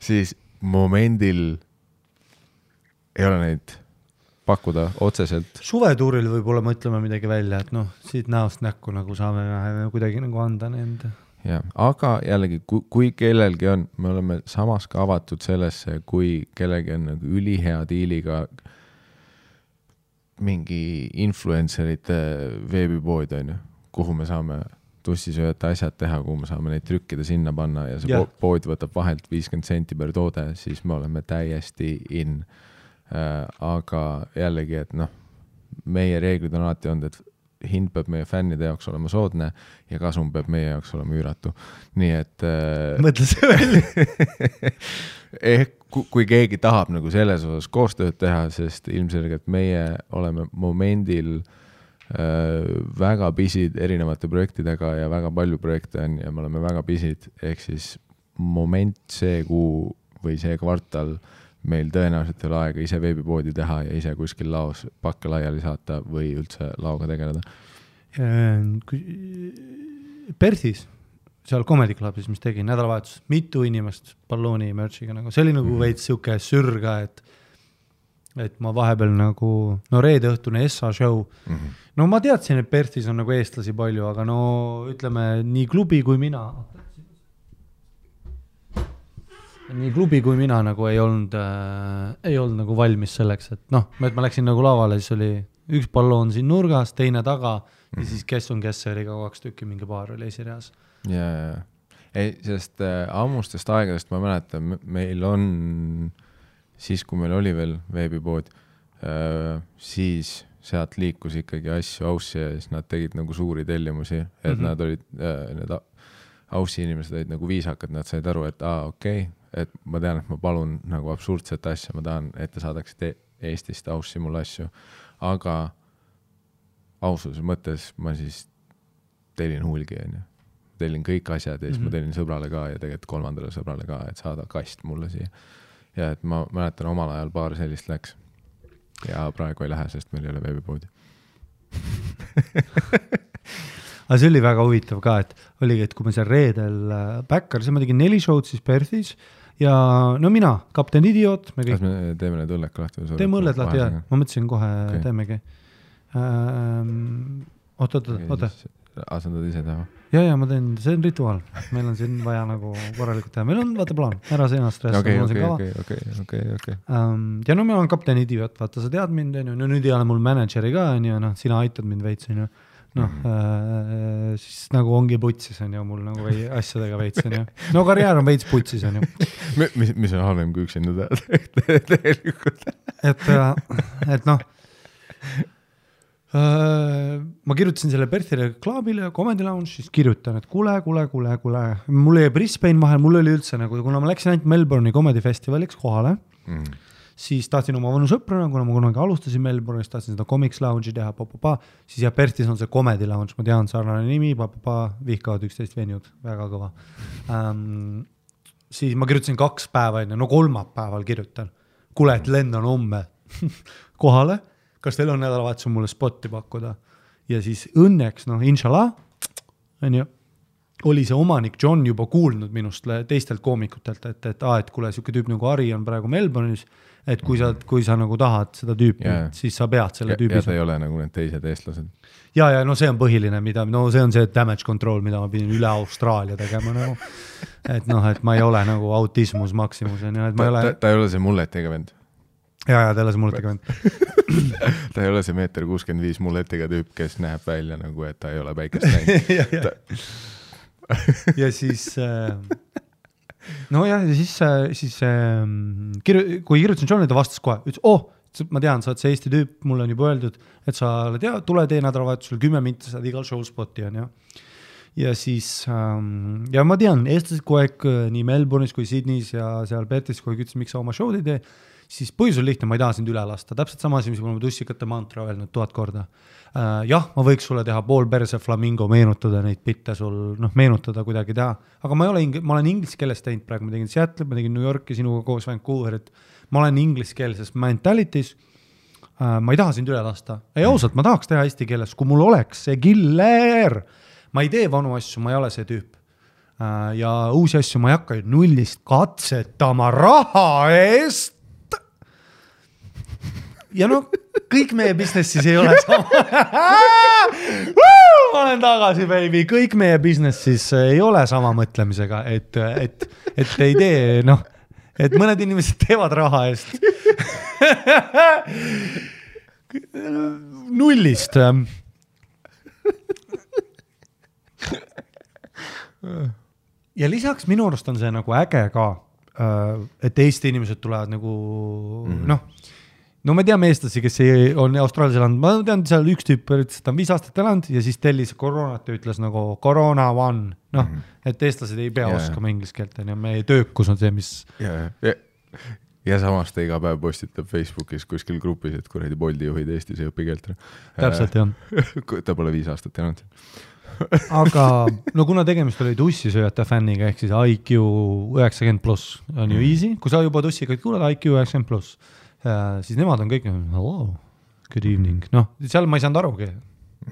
siis momendil ei ole neid pakkuda otseselt. Suvetuuril võib-olla mõtleme midagi välja, et noh, siit näost näkku nagu saame kuidagi nagu anda nende. Ja, aga jällegi, kui kellelgi on, me oleme samas ka avatud sellesse, kui kellelgi on nagu ülihea diiliga mingi influencerite veebipood on ju, kuhu me saame tussisööjate asjad teha, kuhu me saame neid trükkida sinna panna ja see pood võtab vahelt 50 senti per toode, siis me oleme täiesti in. Aga jällegi, et noh, meie reeglid on alati olnud, et hind peab meie fännide jaoks olema soodne ja kasum peab meie jaoks olema üüratu. Nii et mõtle see välja. Kui keegi tahab nagu selles osas koostööd teha, sest ilmselgelt meie oleme momendil väga pisid erinevate projektidega ja väga palju projekte on ja me oleme väga pisid, ehk siis moment see kuu või see kvartal meil tõenäoliselt ei ole aega ise veebipoodi teha ja ise kuskil laos pakke laiali saata või üldse laoga tegeleda. Perthis, seal Comedy Clubis, mis tegi nädalavahetus, mitu inimest ballooni merchiga, nagu see oli nagu veits siuke sürga, et ma vahepeal nagu, no reede õhtune SA show, no ma teadsin, et Perthis on nagu eestlasi palju, aga no ütleme nii klubi kui mina nagu ei olnud nagu valmis selleks, et noh, et ma läksin nagu lavale, siis oli üks balloon siin nurgas, teine taga ja siis kes on kes, oli ka 2 tükki, mingi paar oli esireas. Ja. Ei, sest ammustest aegadest ma mäletan, meil on, siis kui meil oli veel veebipood, siis sealt liikus ikkagi asju Aussi ja siis nad tegid nagu suuri tellimusi, et nad olid, need Aussi inimesed olid nagu viisakad, nad said aru, et okei, et ma tean, et ma palun nagu absurdset asja, ma tahan, et te saadaksite Eestist Aussi mulle asju, aga aususe mõttes ma siis tellin hulgi, tellin kõik asjad ja siis ma tellin sõbrale ka ja tegelikult 3. sõbrale ka, et saada kast mulle siia. Ja et ma mäletan, omal ajal paar sellist läks ja praegu ei lähe, sest meil ei ole veebipoodi. Aga see oli väga huvitav ka, et oligi, et kui me seal reedel Backyard, siis ma tegin 4 show'd siis Perthis ja no mina, Kapten Idiot. Kas me teeme need õlled ka lahti? Teeme õlled lahti, jah. Ma mõtlesin kohe teemegi. Oota. Asendad ise teha? Ja, ma teen, see on rituaal. Meil on siin vaja nagu korralikult teha. Meil on, vaata plaan, ära see ennast stressa. Okay. Ja no meil on Kapten Idiot, vaata, sa tead mind, no nüüd ei ole mul manageri ka, no sina aitad mind veits, siis nagu ongi putsis, mul nagu asjadega veits, no karjäär on veits putsis, Mis on halvem kui üksinda tegelikult? Et noh, ma kirjutasin selle Perthile reklaamile ja Comedy Lounge, siis kirjutan, et kuule. Mul jäi Brisbane vahel, mul oli üldse nagu, kuna ma läksin ainult Melbourne'i Comedy Festivaliks kohale, siis tahtsin oma vanu sõprana, kuna ma kunagi alustasin Melbourne'is, tahtsin seda Comics Lounge'i teha, siis ja Perthis on see Comedy Lounge, ma tean, sarnane nimi, vihkavad 11 venjud, väga kõva. Siis ma kirjutasin 2 päeva enne, no 3. päeval kirjutan, kuule, et lendan homme kohale, kas teil on nädalavahetus mulle spotti pakkuda? Ja siis õnneks, inshallah, oli see omanik John juba kuulnud minust teistelt koomikutelt, et kuule, siuke tüüp nagu Ari on praegu Melbourne'is, et kui sa nagu tahad seda tüüpi, siis sa pead selle tüübi. Ja ta ei ole nagu need teised eestlased. Ja, no see on põhiline, see on see damage control, mida ma pidin üle Austraalia tegema nagu. Et ma ei ole nagu autismus maksimus. Ta ei ole see mulletiga vend. Ja, ta ei ole see mulletiga vend. Ta ei ole see 1.65 meetri mulletiga tüüp, kes näeb välja nagu, et ta ei ole päikest näinud. Ja siis kui kirjutasin Johnile, ta vastas kohe, ütles, ma tean, sa oled see Eesti tüüp, mulle on juba öeldud, et sa oled tule tee nädalavahetusel 10 minti, saad igal show spotti on ja siis ja ma tean, eestlased kogu aeg nii Melbourne'is kui Sydney's ja seal Perthis kogu aeg ütles, miks sa oma show'd ei tee siis põhjus on lihtne, ma ei taha sind üle lasta, täpselt sama asi, mis ma olen tussikate mantra öelnud 1000 korda. Jah, ma võiks sulle teha pool perse flamingo, meenutada neid bitte sul, meenutada kuidagi teha, aga ma olen inglise keeles teinud praegu, ma tegin Seattle, ma tegin New Yorki sinuga koos Vancouverit, ma olen inglise keelses mentalities, ma ei taha sind üle lasta, ei ausalt, ma tahaks teha eesti keeles, kui mul oleks see killer, ma ei tee vanu asju, ma ei ole see tüüp. Ja uusi asju ma ei hakka nullist katsetama raha eest. Ja kõik meie businessis ei ole sama. Ma olen tagasi, baby. Kõik meie businessis ei ole sama mõtlemisega, et ei tee, et mõned inimesed teevad raha eest. Nullist. Ja lisaks minu arust on see nagu äge ka, et Eesti inimesed tulevad nagu, no me teame eestlasi, kes on Austraalias elanud, ma tean seal üks tüüp, et ta on 5 aastat elanud ja siis tellis koroonat ja ütles nagu Corona one, et eestlased ei pea oskama inglise keelt, ja meie töökus on see, mis... Ja samas ta iga päev postitab Facebookis kuskil grupis, et kuradi Bolti juhid Eestis ei õpi keelt. Täpselt, jah. Ta pole 5 aastat elanud. Aga kuna tegemist oli tussisööjate fänniga, ehk siis IQ 90+, on ju easy, kui sa juba tussikaid kuulad IQ 90+, siis nemad on kõik, hello, good evening, seal ma ei saanud arugi.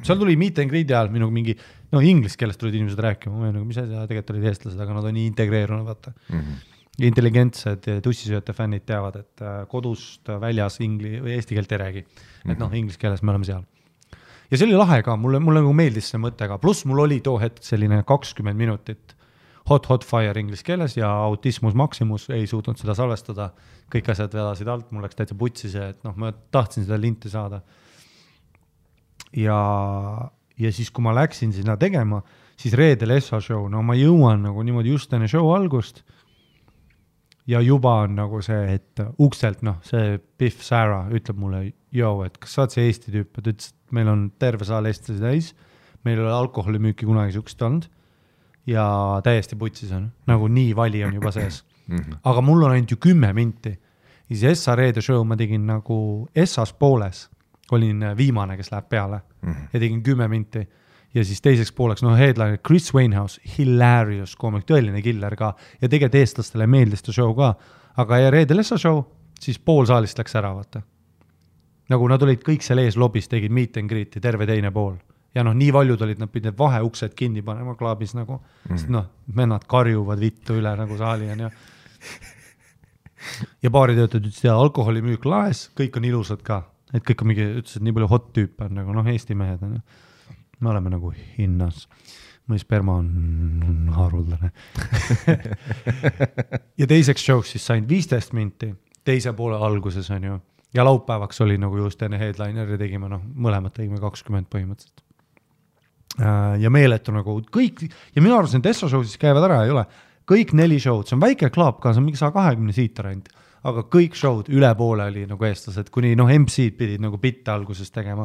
Seal tuli meet and greet ajal minu mingi, inglise keelest tulid inimesed rääkima, mis tegelikult olid eestlased, aga nad on nii integreerunud, vaata. Intelligentsed tussisööjate fännid teavad, et kodust väljas eesti keelt ei räägi, et inglise keeles me oleme seal. Ja see oli lahe ka, mulle nagu meeldis see mõttega, pluss mul oli too hetk selline 20 minutit hot fire inglise keeles ja autismus maximus ei suutnud seda salvestada, kõik asjad vedasid alt, mul läks täitsa putsi see, et ma tahtsin seda linti saada. Ja siis, kui ma läksin sinna tegema, siis reedel Essa show, ma jõuan nagu niimoodi just enne show algust ja juba on nagu see, et ukselt, see Biff Sarah ütleb mulle, et kas sa oled see Eesti tüüp, et ütles, et meil on terve saal eestlasi täis, meil ei ole alkoholimüüki kunagi sukst olnud ja täiesti putsis on, nagu nii vali on juba sees. Aga mul on ainult ju 10 minti. Ja siis Essa reede show ma tegin nagu Essas pooles, olin viimane, kes läheb peale ja tegin 10 minti. Ja siis teiseks pooleks, headliner Chris Wainhouse, hilarious koomik, tõeline killer ka ja tegelikult eestlastele meeldis ta show ka, aga ja reedel Essa show, siis pool saalist läks ära, vaata. Nagu nad olid kõik seal ees lobis, tegid meet and greet'i, terve teine pool. Ja nii valjud olid, nad pidid vaheuksed kinni panema klaabis nagu, sest vennad karjuvad vittu üle nagu saali on ja baaritöötajad ütlesid, alkoholimüük laes, kõik on ilusad ka, et kõik on mingi, ütlesid, nii palju hot tüüp on nagu, Eesti mehed on me oleme nagu hinnas, mõni sperma on haruldane. Ja teiseks showks siis sain 15 minti, teise poole alguses on ju, ja laupäevaks oli nagu just enne headliner ja tegime, mõlemad tegime 20 põhimõtteliselt. Ja meeletu nagu kõik, ja minu arvates need Essa show siis käivad ära, ei ole, kõik 4 showd, see on väike klaap ka, see on mingi 120 siitar ainult, aga kõik showd üle poole oli nagu eestlased, kuni MC-d pidid nagu bitte alguses tegema.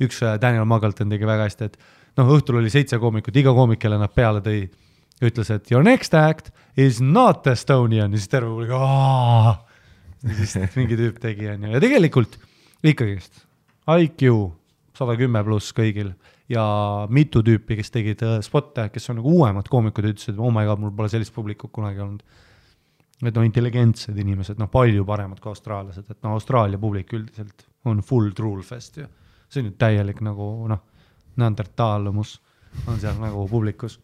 Üks Daniel Muggleton tegi väga hästi, et õhtul oli 7 koomikut, iga koomik, kelle nad peale tõi, ütles, et your next act is not Estonian, ja siis terve oli ja siis mingi tüüp tegi ja tegelikult ikkagist IQ 110+ kõigil ja mitu tüüpi, kes tegid spotte, kes on nagu uuemad koomikud, ütlesid, oh my god, mul pole sellist publikut kunagi olnud. Et intelligentsed inimesed, palju paremad kui austraalased, et Austraalia publik üldiselt on full truulfest ja see on nüüd täielik nagu neandertalumus on seal nagu publikus.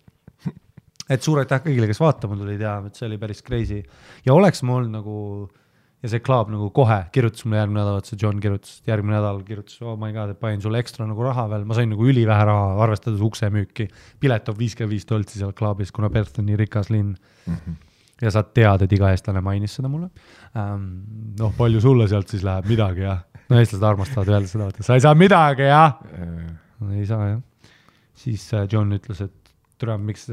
Et suur aitäh kõigile, kes vaatama tulid ja et see oli päris crazy ja oleks mul nagu ja see klaab nagu kohe kirjutas mulle järgmine nädal, et see John kirjutas, järgmine nädal kirjutas, oh my god, et panin sulle ekstra nagu raha veel, ma sain nagu ülivähe raha, arvestades uksemüüki, pilet on $55 seal klaabis, kuna Perth on nii rikas linn. Ja sa tead, et iga eestlane mainis seda mulle. Palju sulle sealt siis läheb midagi ja eestlased armastavad öelda seda, et sa ei saa midagi ja ei saa jah. Siis John ütles, et miks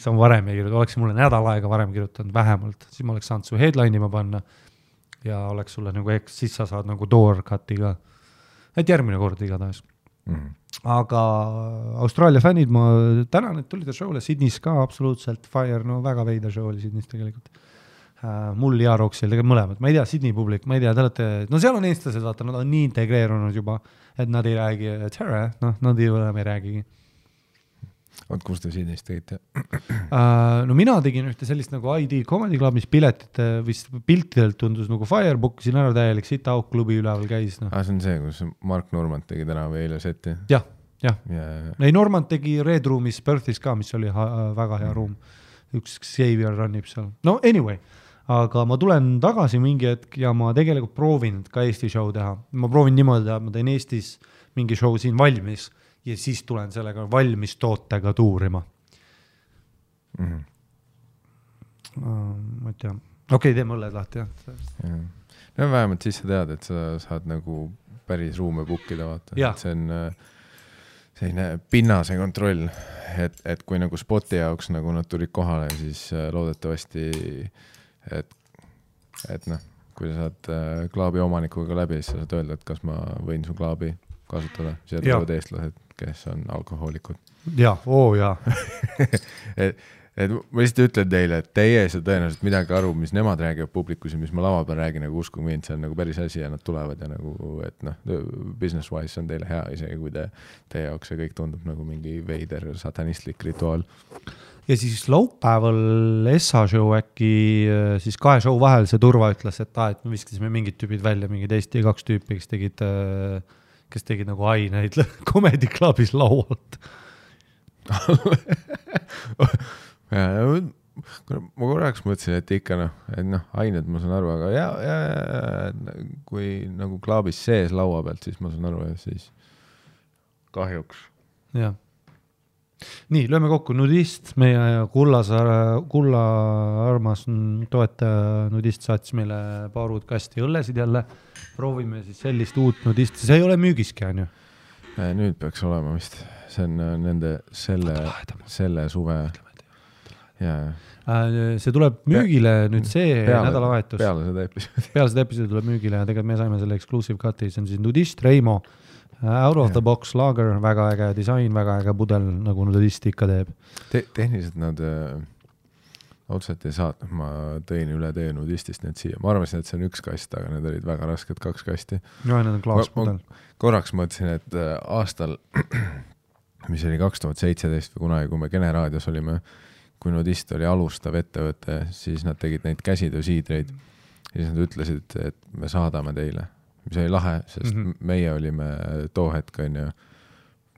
sa varem ei kirjuta, oleks mulle nädal aega varem kirjutanud vähemalt, siis ma oleks saanud su headline'i ma panna ja oleks sulle nagu siis sa saad nagu door cut'i ka. Et järgmine kord igatahes. Aga Austraalia fännid, ma tänan, et tulid show'le Sydneys ka absoluutselt fire, väga veida show oli Sydneys tegelikult. mul ja Roxil, tegelikult mõlemad, ma ei tea, Sydney publik, ma ei tea, te olete, no seal on eestlased, vaata, nad on nii integreerunud juba, et nad ei räägi, tere, noh, nad ei räägigi. Oot, kus te Sydneyst tegite? No mina tegin ühte sellist nagu ID Comedy Club, mis piletite vist piltidelt tundus nagu Firebook, siin ära täielik Sit-Out klubi üleval käis. No. See on see, kus Mark Normand tegi täna või eile seti? Jah. Ei, Normand tegi Red Roomis Perthis ka, mis oli väga hea ruum. Üks Xavier runnib seal. No anyway, aga ma tulen tagasi mingi hetk ja ma tegelikult proovin ka Eesti show teha. Ma proovin niimoodi, et ma teen Eestis mingi show siin valmis ja siis tulen sellega valmis tootega tuurima. Ma ei tea. Okei, teeme õlled lahti, jah. No vähemalt siis sa tead, et sa saad nagu päris ruume bookida, vaata. See on selline pinnase kontroll, et kui nagu spoti jaoks nagu nad tulid kohale, siis loodetavasti, et noh, kui sa saad klaabi omanikuga läbi, siis sa saad öelda, et kas ma võin su klaabi kasutada. Siia tulevad eestlased, kes on alkohoolikud. Jaa, et ma lihtsalt ütlen teile, et teie ei saa tõenäoliselt midagi aru, mis nemad räägivad publikus ja mis ma lava peal räägin, nagu uskuge mind, see on nagu päris asi ja nad tulevad ja nagu, et noh, business wise on teile hea isegi, kui teie jaoks see kõik tundub nagu mingi veider satanistlik rituaal. Ja siis laupäeval Essa show äkki siis 2 show vahel see turva ütles, et me viskasime mingid tüübid välja, mingid Eesti 2 tüüpi, kes tegid nagu aineid Comedy Clubis laualt. Ma korraks mõtlesin, et ikka ained ma saan aru, aga ja kui nagu klaabis sees laua pealt, siis ma saan aru, ja siis kahjuks. Jah. Nii, lööme kokku Nudist, meie kulla armas toetaja Nudist saatis meile paar uut kasti õllesid jälle. Proovime siis sellist uut Nudisti, see ei ole müügiski, on ju? Nüüd peaks olema vist, see on nende selle suve. See tuleb müügile nüüd see nädalavahetus. Peale seda episoodi tuleb müügile ja tegelikult me saime selle exclusive cut'i, see on siis Nudist Reimo, out of the box lager, väga äge disain, väga äge pudel, nagu Nudist ikka teeb. Tehniliselt nad otseselt ei saat, ma tõin üle tee Nudistist need siia. Ma arvasin, et see on 1 kast, aga need olid väga rasked 2 kasti. No, need on klaaspudel. Korraks mõtlesin, et aastal, mis oli 2017 või kunagi, kui me Generaadios olime, kui Nudist oli alustav ettevõte, siis nad tegid neid käsitöösiidreid ja siis nad ütlesid, et me saadame teile, mis oli lahe, sest meie olime too hetk,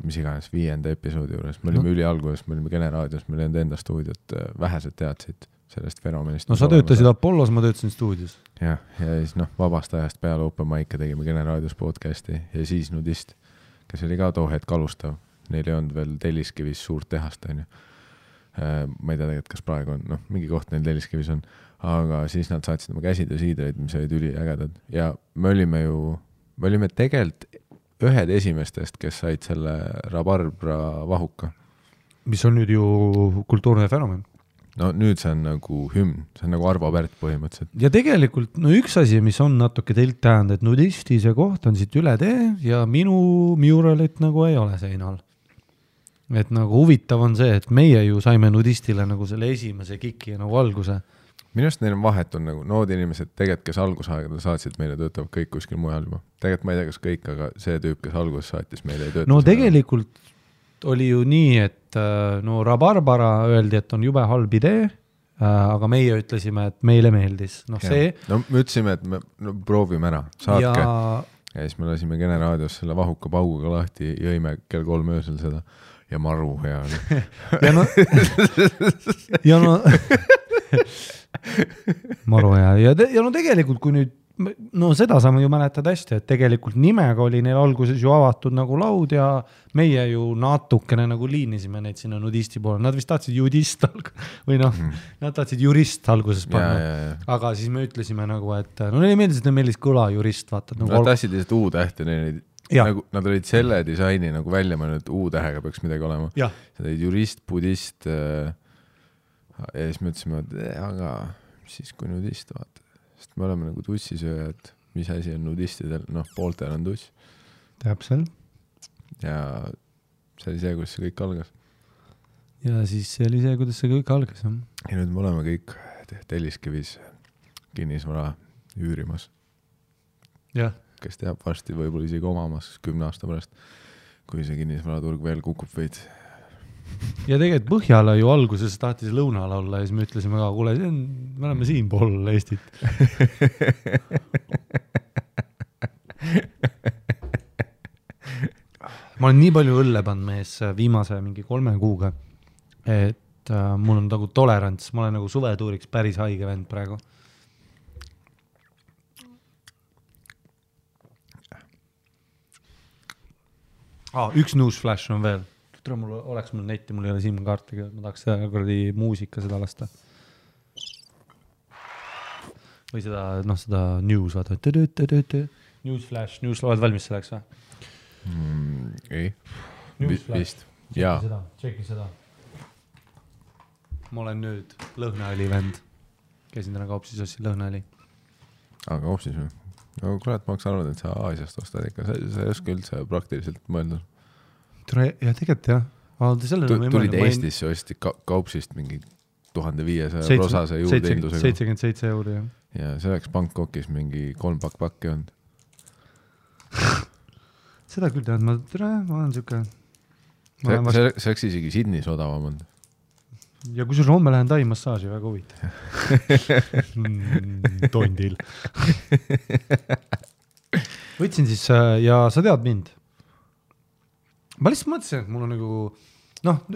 mis iganes 5. episoodi juures, me olime ülialguses, me olime Generaadios, me olime enda stuudiot, vähesed teadsid sellest fenomenist. No sa töötasid Apollos, ma töötasin stuudios. Ja siis vabast ajast peale open mic'e tegime Generaadios podcasti ja siis Nudist, kes oli ka too hetk alustav, neil ei olnud veel Telliskivis suurt tehast, ma ei tea tegelikult, kas praegu on, mingi koht neil Telliskivis on, aga siis nad saatsid oma käsitöösiidreid, mis olid üliägedad ja me olime tegelikult ühed esimestest, kes said selle Rabarbra vahuka. Mis on nüüd ju kultuurne fenomen. No nüüd see on nagu hümn, see on nagu Arvo Pärt põhimõtteliselt. Ja tegelikult, üks asi, mis on natuke teilt tähend, et Nudisti see koht on siit üle tee ja minu muralit nagu ei ole seinal. Et nagu huvitav on see, et meie ju saime Nudistile nagu selle esimese kiki nagu alguse. Minu arust neil on vahet on nagu nood inimesed tegelikult, kes algusaegada saatsid meile, töötavad kõik kuskil mujal juba. Tegelikult ma ei tea, kas kõik, aga see tüüp, kes alguses saatis meile ei tööta. No tegelikult oli ju nii, et Rabarbara öeldi, et on jube halb idee, aga meie ütlesime, et meile meeldis. No me ütlesime, et me proovime ära, saatke. Ja siis me lasime Generaadios selle vahuka pauguga lahti, jõime kell 3 öösel seda ja maru hea oli. maru hea. Ja tegelikult, kui nüüd, seda saame ju mäletad hästi, et tegelikult nimega oli neil alguses ju avatud nagu laud ja meie ju natukene nagu liinisime neid sinna Nudisti poole. Nad vist tahtsid judist või nad tahtsid jurist alguses panna. Aga siis me ütlesime nagu, et neile meeldis, et meeldis kõla jurist, vaata. Nad tahtsid lihtsalt U-tähti, nagu, nad olid selle disaini nagu välja mõelnud, et U-tähega peaks midagi olema. Nad olid jurist, budist ja siis me ütlesime, et aga siis kui Nudist vaata. Sest me oleme nagu tussisööjad, mis asi on Nudistidel, pooltel on tuss. Täpselt. Ja see oli see, kuidas see kõik algas. Ja siis see oli see, kuidas see kõik algas. Ja nüüd me oleme kõik Telliskivis kinnisvara üürimas. jah. Kes teab varsti võib-olla isegi omamas 10 aasta pärast, kui see kinnisvaraturg veel kukub veid. Ja tegelikult Põhjala ju alguses tahtis lõunal olla ja siis me ütlesime ka, kuule, me oleme siin pool Eestit. Ma olen nii palju õlle pannud mees viimase mingi 3 kuuga, et mul on nagu tolerants, ma olen nagu suvetuuriks päris haige vend praegu. Üks newsflash on veel. Oleks mul netti, mul ei ole SIM-kaartiga, ma tahaks seda kuradi muusika seda lasta. Või seda, seda news, vaata. Newsflash, oled valmis selleks või? Ei, vist. Tšeki seda. Ma olen nüüd lõhnaõli vend. Käisin täna kaupsis ossi lõhnaõli. Aga kaupsis või? No kurat, ma oleks arvanud, et sa Aasiast ostad ikka. Sa ei oska üldse praktiliselt mõelda. Ja tegelikult jah. Tulid Eestisse, osti kaupsist mingi 1500 rosase juurdehindusega. 77 €, jah. Ja see oleks Bangkokis mingi 3 pakki olnud. Seda küll tead, ma olen siuke... See oleks isegi Sydneys odavam olnud. Ja kui sul homme lähen tai massaaži, väga huvitav. Tondil. Võtsin siis, ja sa tead mind. Ma lihtsalt mõtlesin, et mul on nagu...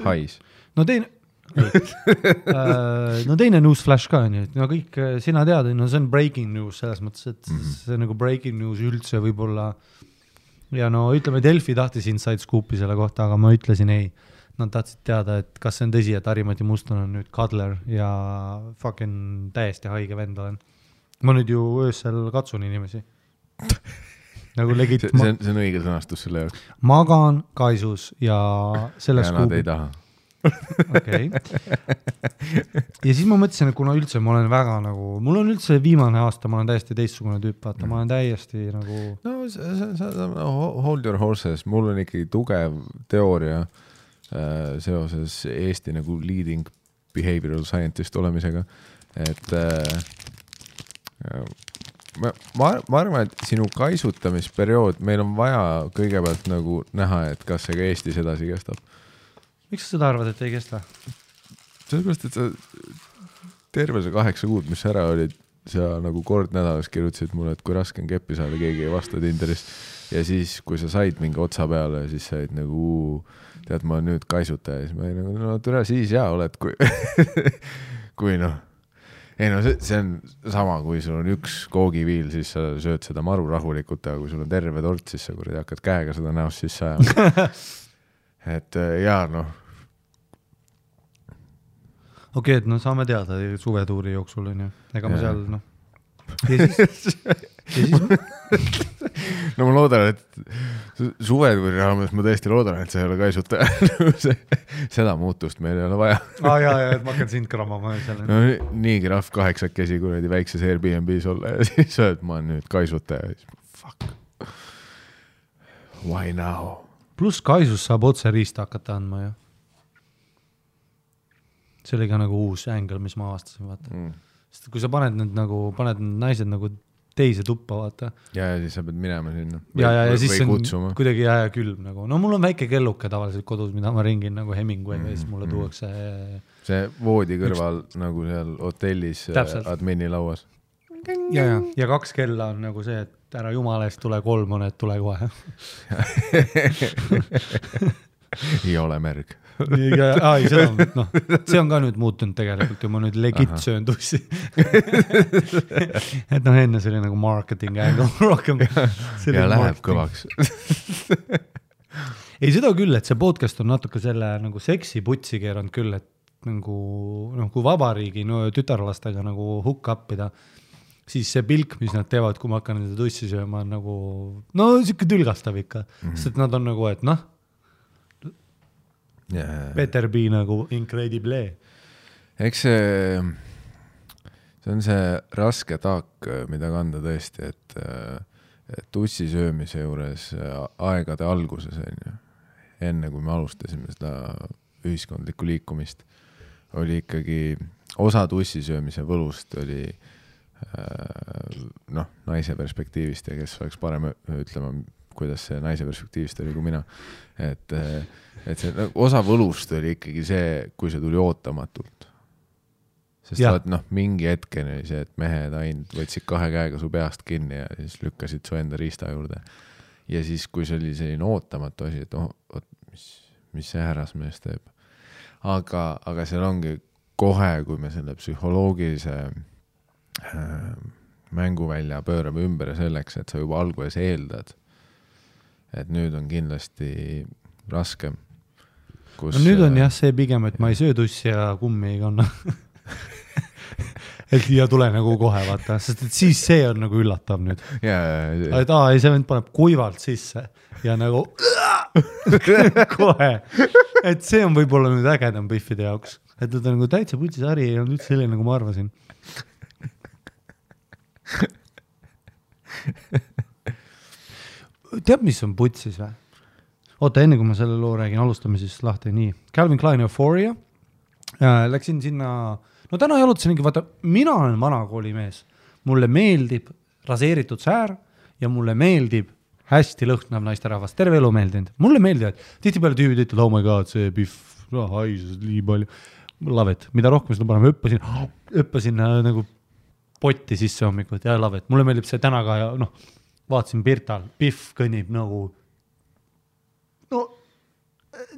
Hais. No teine newsflash ka, nii, et kõik sina tead, see on breaking news selles mõttes, et see nagu breaking news üldse võib-olla... Ja ütleme, Delfi tahtis inside scoopi selle kohta, aga ma ütlesin ei. Nad tahtsid teada, et kas see on tõsi, et Harri-Mati Muston on nüüd kadler ja fucking täiesti haige vend olen. Ma nüüd ju öösel katsun inimesi. Nagu legit... See on õige sõnastus selle jaoks. Magan kaisus ja selles ja nad ei taha. Okay. Ja siis ma mõtlesin, et kuna üldse ma olen väga nagu... Mul on üldse viimane aasta, ma olen täiesti teistsugune tüüp, vaata. Ma olen täiesti nagu... Hold your horses. Mul on ikkagi tugev teooria seoses Eesti nagu leading behavioral scientist olemisega, et ma arvan, et sinu kaisutamisperiood, meil on vaja kõigepealt nagu näha, et kas see ka Eestis edasi kestab. Miks sa seda arvad, et ei kesta? Sellepärast, et sa terve see 8 kuud, mis ära olid, sa nagu kord nädalas kirjutasid mulle, et kui raske on keppi saada, keegi ei vasta Tinderis. Ja siis, kui sa said mingi otsa peale, siis said nagu, tead, ma nüüd kaisuta ja siis ma ei nagu, no türa siis jaa oled, kui noh. Ei no see on sama, kui sul on üks koogiviil, siis sa sööd seda maru rahulikult, aga kui sul on terve tort, siis sa kuradi hakkad käega seda näost siis sajama. Et jaa, noh. Okei, et saame teada suvetuuri jooksul, on ju. Ega ma seal, Ja siis no ma loodan, et suvetuuri raames ma tõesti loodan, et sa ei ole kaisutaja. Seda muutust meil ei ole vaja. Ja, et ma hakkan sind kramama. No, nii krahv 8 kuradi väikses Airbnb's olla ja siis sööd ma nüüd kaisutaja. Fuck. Why now? Plus kaisus saab otse riista hakata andma, ju. See oli ka nagu uus angle, mis ma avastasin, vaata. Sest kui sa paned need naised nagu teise tuppa, vaata. Ja siis sa pead minema sinna. Ja siis on kuidagi külm nagu. No mul on väike kelluke tavaliselt kodus, mida ma ringin nagu Hemingway'ga ja siis mulle tuuakse... See voodi kõrval nagu seal hotellis admini lauas. Ja 2 kella on nagu see, et ära jumala eest tule 3 on, et tule kohe. Ei ole märg. See on ka nüüd muutunud tegelikult ja ma nüüd legit söön tussi. Et enne see oli nagu marketing angle rohkem. Ja läheb kõvaks. Ei, seda küll, et see podcast on natuke selle nagu seksi putsi keeranud küll, et nagu, kui vabariigi tütarlastega nagu hook upida, siis see pilk, mis nad teevad, kui ma hakkan nende tussi sööma, on nagu, siuke tülgastav ikka. Sest et nad on nagu, et better be nagu incredible. Eks see on see raske taak, mida kanda tõesti, et tussi söömise juures aegade alguses, enne kui me alustasime seda ühiskondlikku liikumist, oli ikkagi osa tussi söömise võlust oli noh, naise perspektiivist ja kes oleks parem ütlema, kuidas see naise perspektiivist oli kui mina. Et see osa võlust oli ikkagi see, kui see tuli ootamatult. Sest vaat, mingi hetkeni oli see, et mehed ainult võtsid 2 käega su peast kinni ja siis lükkasid su enda riista juurde. Ja siis, kui see oli selline ootamatu asi, et mis see härrasmees teeb. Aga seal ongi kohe, kui me selle psühholoogilise mänguvälja pöörame ümber selleks, et sa juba alguses eeldad, et nüüd on kindlasti raskem. No nüüd on jah see pigem, et ma ei söö tussi ja kummi ei kanna. Et ja tule nagu kohe vaata, sest et siis see on nagu üllatav nüüd. Et ei, see vend paneb kuivalt sisse ja nagu kohe. Et see on võib-olla nüüd ägedam Biffide jaoks. Et ta nagu täitsa putsis hari ei olnud üldse selline, nagu ma arvasin. Tead, mis on putsis või? Oota, enne kui ma selle loo räägin, alustame siis lahti nii. Calvin Klein Euphoria. Läksin sinna, no täna jalutasingi, vaata, mina olen vanakooli mees. Mulle meeldib raseeritud säär ja mulle meeldib hästi lõhnav naisterahvas. Terve elu meeldinud. Mulle meeldivad. Tihti peale tüübid ütlevad, oh my god, see Biff, haisus, nii palju. Lavet, mida rohkem seda parem õppasin nagu potti sisse hommikut ja lavet. Mulle meeldib see täna ka ja vaatasin Pirtal, Biff kõnnib nagu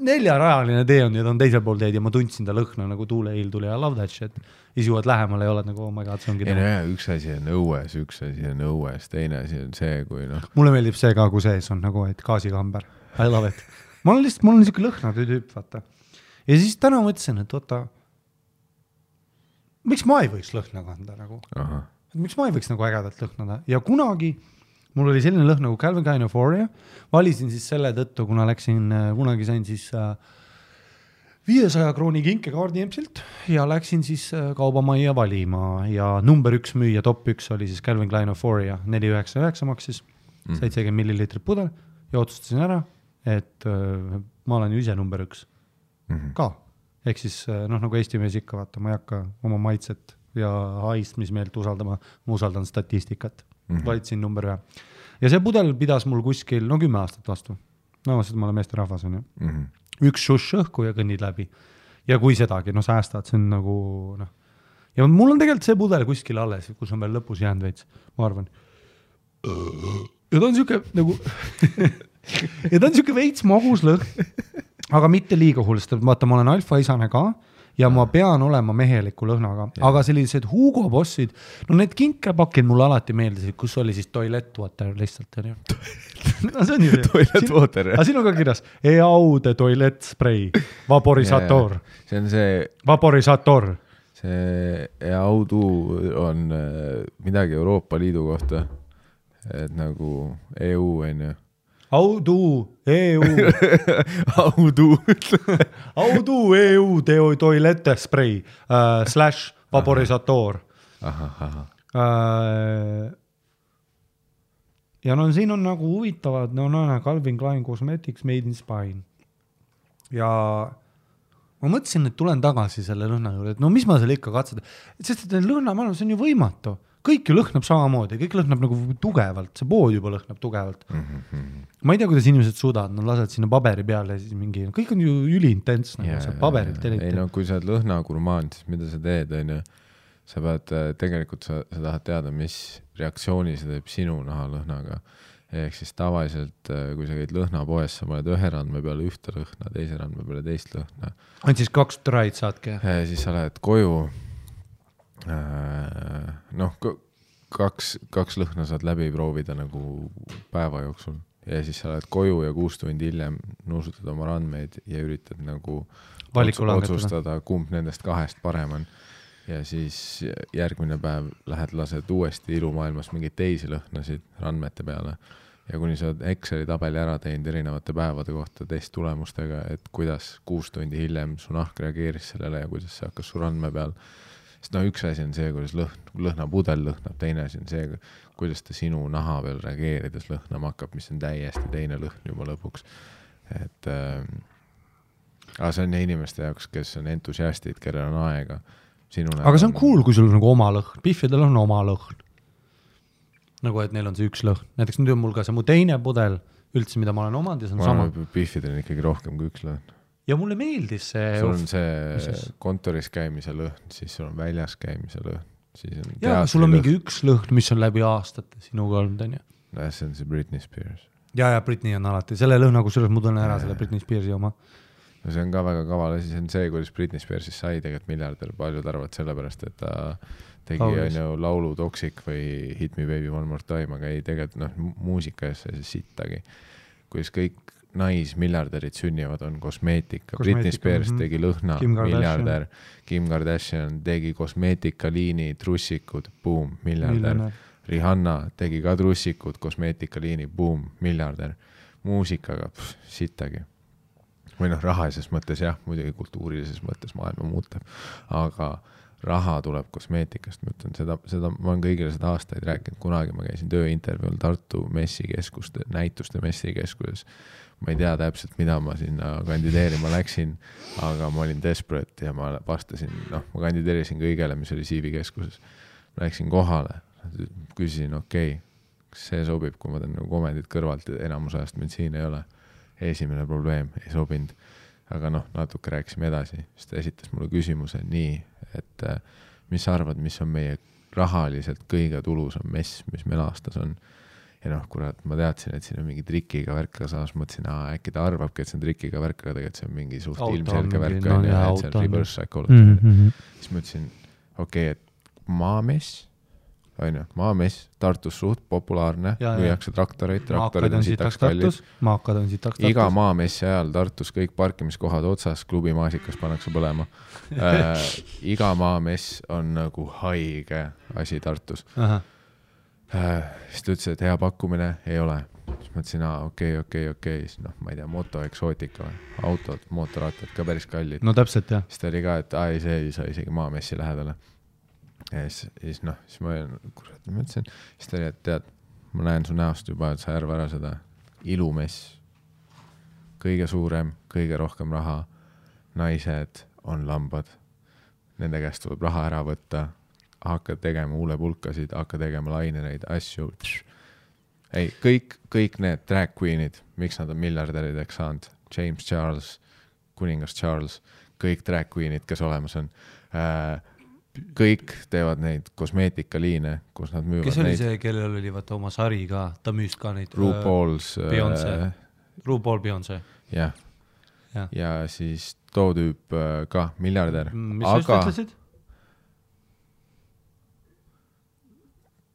4-rajaline tee on ja ta on teisel pool teed ja ma tundsin ta lõhna nagu tuuleiil tuli ja love that shit. Siis juuad lähemale ja oled nagu, oh my god, see ongi üks asi on õues, üks asi on õues, teine asi on see, kui Mulle meeldib see ka, kui sees on nagu, et gaasikamber. I love it. Mul on niisugune lõhna tüüp, vaata. Ja siis täna mõtlesin, et oota, miks ma ei võiks lõhna kanda nagu? Miks ma ei võiks nagu ägedalt lõhnada? Ja kunagi mul oli selline lõhn nagu Calvin Klein Euphoria. Valisin siis selle tõttu, kuna kunagi sain siis 500 krooni kinkekaardi EMS-ilt ja läksin siis kaubamajja valima ja number 1 müüja, top 1 oli siis Calvin Klein Euphoria, 4,99 maksis, 70 milliliitrit pudel ja otsustasin ära, et ma olen ju ise number 1 ka. Ehk siis nagu Eesti mees ikka vaata, ma ei hakka oma maitset ja haistmismeelt usaldama, ma usaldan statistikat. Valitsin number 1. Ja see pudel pidas mul kuskil 10 aastat vastu. Sest ma olen meeste rahvas on ju. Üks šush õhku ja kõnnid läbi. Ja kui sedagi, säästad, see on nagu Ja mul on tegelikult see pudel kuskil alles, kus on veel lõpus jäänud veits, ma arvan. Ja ta on siuke nagu ja ta on siuke veits magus lõhn, aga mitte liiga hull, sest vaata, ma olen alfa-isane ka ja ma pean olema meheliku lõhnaga, aga sellised Hugo Bossid, need kinkepakid mulle alati meeldisid, kus oli siis toilet water lihtsalt. See on ju see. Toilet water, jah. Aga siin on ka kirjas, Eaude toilet spray, vaporisator. See on see... Vaporisator. See Eaudu on midagi Euroopa Liidu kohta, et nagu EU on ju. Audu, EU. Audu, EU, toilette spray, / vaporisator. Ja siin on nagu huvitavad, Calvin Klein Cosmetics Made in Spain. Ja ma mõtlesin, et tulen tagasi selle lõhna juurde, et mis ma selle ikka katseda. Sest et lõhna, see on ju võimatu. Kõik ju lõhnab samamoodi, kõik lõhnab nagu tugevalt, see pood juba lõhnab tugevalt. Ma ei tea, kuidas inimesed suudavad, nad lased sinna paberi peale ja siis mingi, kõik on ju üliintents, nagu paberilt. Kui sa oled lõhnagurmaan, siis mida sa teed, on ju? Sa pead, tegelikult sa tahad teada, mis reaktsiooni see teeb sinu nahalõhnaga. Ehk siis tavaliselt, kui sa käid lõhnapoes, sa paned ühe randme peale ühte lõhna, teise randme peale teist lõhna. Ainult siis 2 traid saadki? Siis sa lähed koju. Kaks lõhna saad läbi proovida nagu päeva jooksul ja siis sa lähed koju ja 6 tundi hiljem nuusutad oma randmeid ja üritad nagu otsustada, kumb nendest 2 parem on ja siis järgmine päev lähed lased uuesti ilumaailmas mingeid teisi lõhnasid randmete peale ja kuni sa Exceli tabeli ära teinud erinevate päevade kohta testulemustega, et kuidas 6 tundi hiljem su nahk reageeris sellele ja kuidas see hakkas su randme peal. Sest üks asi on see, kuidas lõhnapudel lõhnab, teine asi on see, kuidas ta sinu naha peal reageerides lõhnama hakkab, mis on täiesti teine lõhn juba lõpuks. Aga see on inimeste jaoks, kes on entusiastid, kellel on aega, sinu aga see on cool, kui sul on nagu oma lõhn, Biffidel on oma lõhn. Nagu, et neil on see üks lõhn. Näiteks nüüd on mul ka see mu teine pudel üldse, mida ma olen omanud ja see on sama. Biffidel on ikkagi rohkem kui üks lõhn. Ja mulle meeldis see... Sul on see kontoris käimise lõhn, siis sul on väljas käimise lõhn. Siis on ja, sul on mingi üks lõhn, mis on läbi aastate sinuga olnud, on ju. See on see Britney Spears. Ja Britney on alati. Selle lõhna, kus ma tunnen ära selle Britney Spearsi oma. No see on ka väga kaval asi, see on see, kuidas Britney Spearsis sai tegelikult miljardär, paljud arvad sellepärast, et ta tegi on ju laulu Toxic või Hit Me Baby One More Time, aga ei tegelikult muusika ees see sittagi. Kuidas kõik naismiljardärid sünnivad on kosmeetika. Britney Spears tegi lõhna, miljardär. Kim Kardashian tegi kosmeetikaliini, trussikud, boom, miljardär. Rihanna tegi ka trussikud, kosmeetikaliini, boom, miljardär. Muusikaga, sittagi. Või rahalises mõttes jah, muidugi kultuurilises mõttes maailma muutab, aga raha tuleb kosmeetikast, ma ütlen seda ma olen kõigile seda aastaid rääkinud, kunagi ma käisin tööintervjuul Tartu messikeskuste, näituste messikeskuses, ma ei tea täpselt, mida ma sinna kandideerima läksin, aga ma olin desperate ja ma vastasin, ma kandideerisin kõigele, mis oli CV keskuses, ma läksin kohale, küsisin, kas see sobib, kui ma teen komendid kõrvalt ja enamus ajast mind siin ei ole. Esimene probleem ei sobinud, aga natuke rääkisime edasi, siis ta esitas mulle küsimuse nii, et mis sa arvad, mis on meie rahaliselt kõige tulusam mess, mis meil aastas on. Ja kurat, ma teadsin, et siin on mingi trikiga värk, samas mõtlesin, äkki ta arvabki, et see on trikiga värk, aga tegelikult see on mingi suht ilmselge värk, et see on reverse psychology. Siis mõtlesin, et maamess, maamess, Tartus suht populaarne, müüakse traktoreid on sitaks kallid. Iga maamessi ajal Tartus kõik parkimiskohad otsas, klubi maasikas pannakse põlema. Iga maamess on nagu haige asi Tartus. Siis ta ütles, et hea pakkumine ei ole. Siis mõtlesin, okei, siis ma ei tea, motoeksootika või autod, mootorattad ka päris kallid. No täpselt, jah. Siis ta oli ka, et see ei saa isegi maamessi lähedale. Ja siis ma mõtlesin, siis ta oli, et tead, ma näen su näost juba, et sa järva ära seda ilumess, kõige suurem, kõige rohkem raha, naised on lambad, nende käest tuleb raha ära võtta, hakka tegema huulepulkasid, hakka tegema lainereid, asju, ei, kõik need drag queenid, miks nad on miljardärideks saanud, James Charles, kuningas Charles, kõik drag queenid, kes olemas on, kõik teevad neid kosmeetikaliine, kus nad müüvad neid. Kes oli see, kellel oli vaata oma sari ka, ta müüs ka neid RuPaul Beyoncé. Jah. Ja siis too tüüp ka miljardär. Mis sa just ütlesid?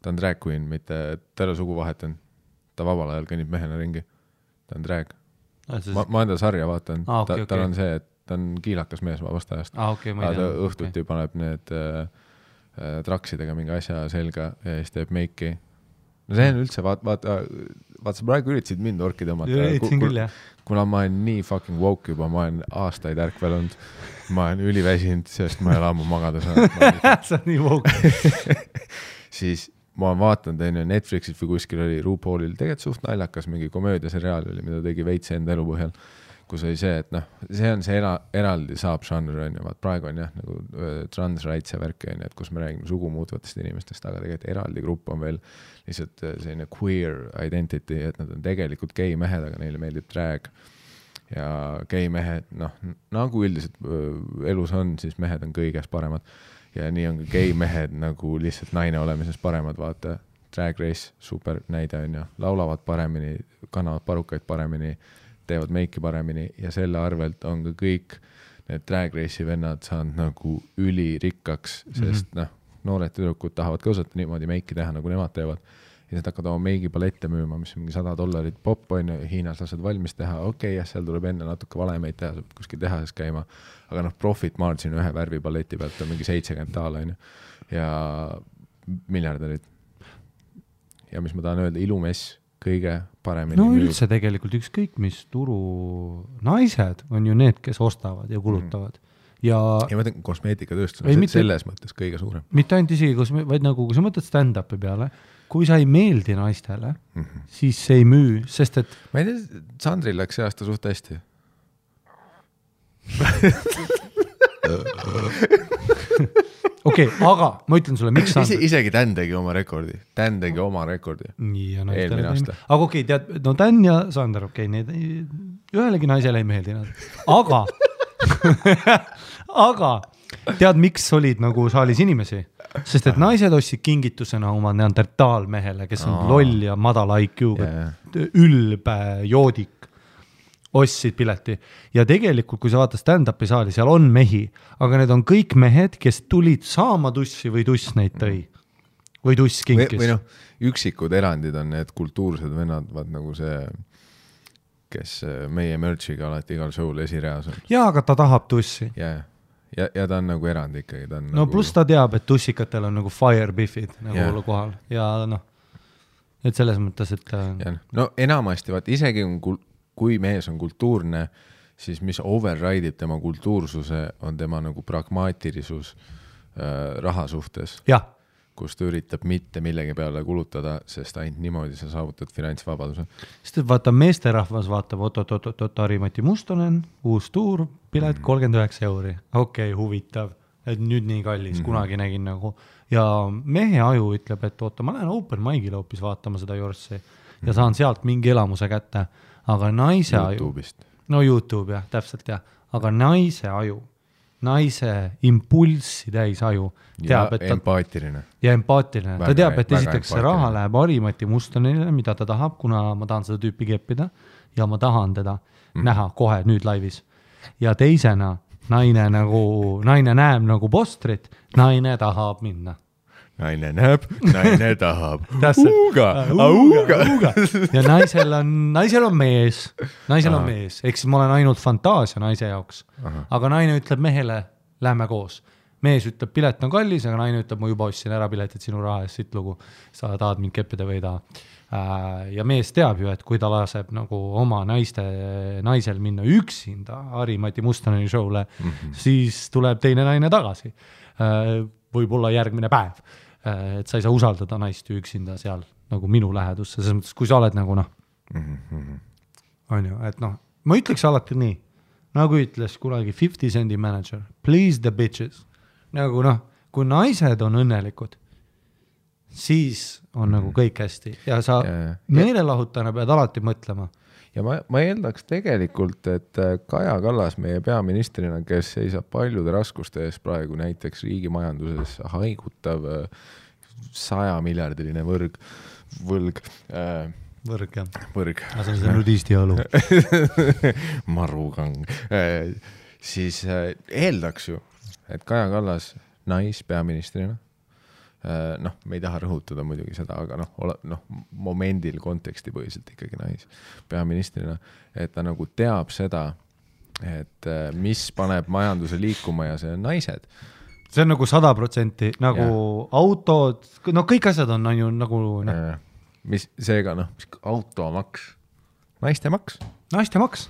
Ta on drag queen, mitte terve sugu vahetan. Ta vabal ajal kõnnib mehena ringi. Ta on drag. Ma enda sarja vaatan. Tal on see, et ta on kiilakas mees vabast ajast. Ta õhtuti paneb need traksidega mingi asja selga ja siis teeb meiki. No see on üldse, vaata, sa praegu üritasid mind orki tõmmata. Kuna ma olen nii fucking woke juba, ma olen aastaid ärkvel olnud, ma olen üliväsinud, sest ma ei ole ammu magada saanud. Sa on nii woke. Siis ma vaatan Netflixis või kuskil oli RuPaulil tegelikult suht naljakas mingi komöödiaseriaal oli, mida tegi veits enda elu põhjal. Kus oli see, et see on see eraldi saab žanr, praegu on jah, nagu trans rights ja värk, et kus me räägime sugu muutvatest inimestest, aga tegelikult eraldi grupp on veel lihtsalt selline queer identity, et nad on tegelikult gei mehed, aga neile meeldib drag ja gei mehed, nagu üldiselt elus on, siis mehed on kõiges paremad ja nii on ka gei mehed nagu lihtsalt naine olemises paremad, vaata Drag Race, super näide on ja laulavad paremini, kannavad parukaid paremini, teevad meiki paremini ja selle arvelt on ka kõik need Drag Race'i vennad saanud nagu ülirikkaks, sest noored tüdrukud tahavad ka osata niimoodi meiki teha, nagu nemad teevad. Ja nad hakkavad oma meigipalette müüma, mis on mingi $100 pop on ja Hiinas lased valmis teha. Okei, seal tuleb enne natuke valemeid teha, saab kuskil tehases käima, aga profit margin ühe värvipaleti pealt on mingi $70 ja miljardärid. Ja mis ma tahan öelda, ilumess kõige paremini müüb. Üldse tegelikult ükskõik mis turu naised on ju need, kes ostavad ja kulutavad. Ja ma mõtlen kosmeetikatööstus on selles mõttes kõige suurem. Mitte ainult isegi, vaid nagu kui sa mõtled stand-upi peale, kui sa ei meeldi naistele, siis see ei müü, sest et... Ma ei tea, Sandril läks see aasta suht hästi. okei, aga ma ütlen sulle, miks isegi Dan tegi oma rekordi. Nii, ja eelmine aasta. Aga okei, tead, no Dan ja Sander, okei, need ühelegi naisele ei meeldi nad. Aga tead, miks olid nagu saalis inimesi? Sest et naised ostsid kingitusena oma neandertaalmehele, kes on loll ja madala IQ-ga, ülbe joodik, ostsid pileti. Ja tegelikult, kui sa vaatad stand-upi saali, seal on mehi, aga need on kõik mehed, kes tulid saama tussi või tuss neid tõi. Või tuss kinkis. Või noh, üksikud erandid on need kultuursed vennad, vaat nagu see, kes meie merchiga alati igal show'l esireas on. Jaa, aga ta tahab tussi. Ja ta on nagu erand ikkagi. Ta on no nagu... pluss ta teab, et tussikatel on nagu fire biffid nagu kohal. Ja noh, et selles mõttes, et... Ja, no enamasti, vaat isegi kui mees on kultuurne, siis mis override'ib tema kultuursuse, on tema nagu pragmaatilisus raha suhtes. Jah. Kus ta üritab mitte millegi peale kulutada, sest ainult niimoodi sa saavutad finantsvabaduse. Sest vaata, meesterahvas vaatab, Harri-Mati Mustonen, uus tuur, pilet 39 €. Okei, huvitav, et nüüd nii kallis, kunagi nägin nagu. Ja mehe aju ütleb, et oota, ma lähen open mic'ile hoopis vaatama seda Jorssi ja saan sealt mingi elamuse kätte. Aga naise YouTube'ist. aju, no YouTube jah, täpselt jah, aga naise aju, naise impulssi täis aju, teab, ja empaatiline. Ja empaatiline. Ta teab, et esiteks see raha läheb Harri-Mati Mustonile, mida ta tahab, kuna ma tahan seda tüüpi keppida ja ma tahan teda näha kohe nüüd laivis. Ja teisena naine näeb nagu postrit, naine tahab minna. Naine näeb, naine tahab. Auga. Ja naisel on mees. Naisel on mees. Eks ma olen ainult fantaasia naise jaoks. Aga naine ütleb mehele, lähme koos. Mees ütleb, pilet on kallis, aga naine ütleb, ma juba ostsin ära piletit sinu raha eest, siit lugu. Sa tahad mind keppida või ei taha. Ja mees teab ju, et kui ta laseb nagu oma naisel minna üksinda Harri-Mati Mustoneni show'le, siis tuleb teine naine tagasi. Võib-olla järgmine päev. Et sa ei saa usaldada naist üksinda seal nagu minu lähedusse, selles mõttes, kui sa oled nagu noh, on ju, et noh, ma ütleks alati nii, nagu ütles kunagi 50 Cendi manager, please the bitches, nagu noh, kui naised on õnnelikud, siis on nagu kõik hästi ja sa meelelahutana pead alati mõtlema. Ja ma eeldaks tegelikult, et Kaja Kallas meie peaministrina, kes seisab paljude raskuste ees praegu näiteks riigi majanduses haigutav 100 miljardiline võlg. Võrg, jah. Võrg. See on see nudisti alu. Marugang. Siis eeldaks ju, et Kaja Kallas naispeaministrina, noh, me ei taha rõhutada muidugi seda, aga noh, momendil konteksti põhiselt ikkagi peaministrina, et ta nagu teab seda, et mis paneb majanduse liikuma ja see on naised. See on nagu 100%, nagu autod, no kõik asjad on ju nagu... Mis seega, automaks, naiste maks. Naiste maks.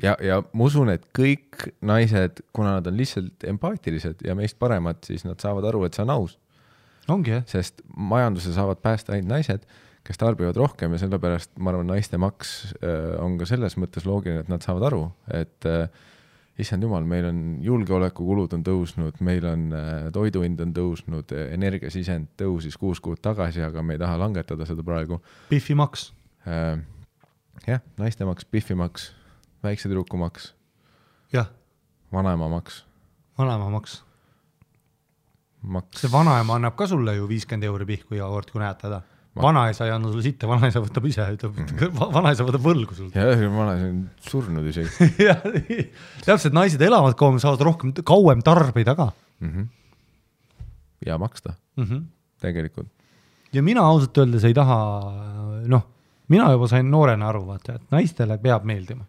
Ja ma usun, et kõik naised, kuna nad on lihtsalt empaatilised ja meist paremad, siis nad saavad aru, et see on aus. Ongi, jah. Sest majanduse saavad päästa ainult naised, kes tarbivad rohkem ja sellepärast, ma arvan, naiste maks on ka selles mõttes loogiline, et nad saavad aru, et issand jumal, meil on julgeolekukulud on tõusnud, meil on toiduhind on tõusnud, energiasisend tõusis 6 kuud tagasi, aga me ei taha langetada seda praegu. Biffi maks. Jah, naiste maks, biffi maks. Väikse tüdruku maks. Jah. Vanaema maks. Vanaema maks. See vanaema annab ka sulle ju 50 € pihku iga kord, kui näed teda. Vanaisa ei anna sulle sitte, vanaisa võtab ise, vanaisa võtab võlgu sul. Ja vanaisa on surnud isegi. Täpselt, naised elavad kauem, saavad rohkem, kauem tarbida ka. Ja maksta. Tegelikult. Ja mina ausalt öeldes ei taha, mina juba sain noorena aru, vaata, et naistele peab meeldima.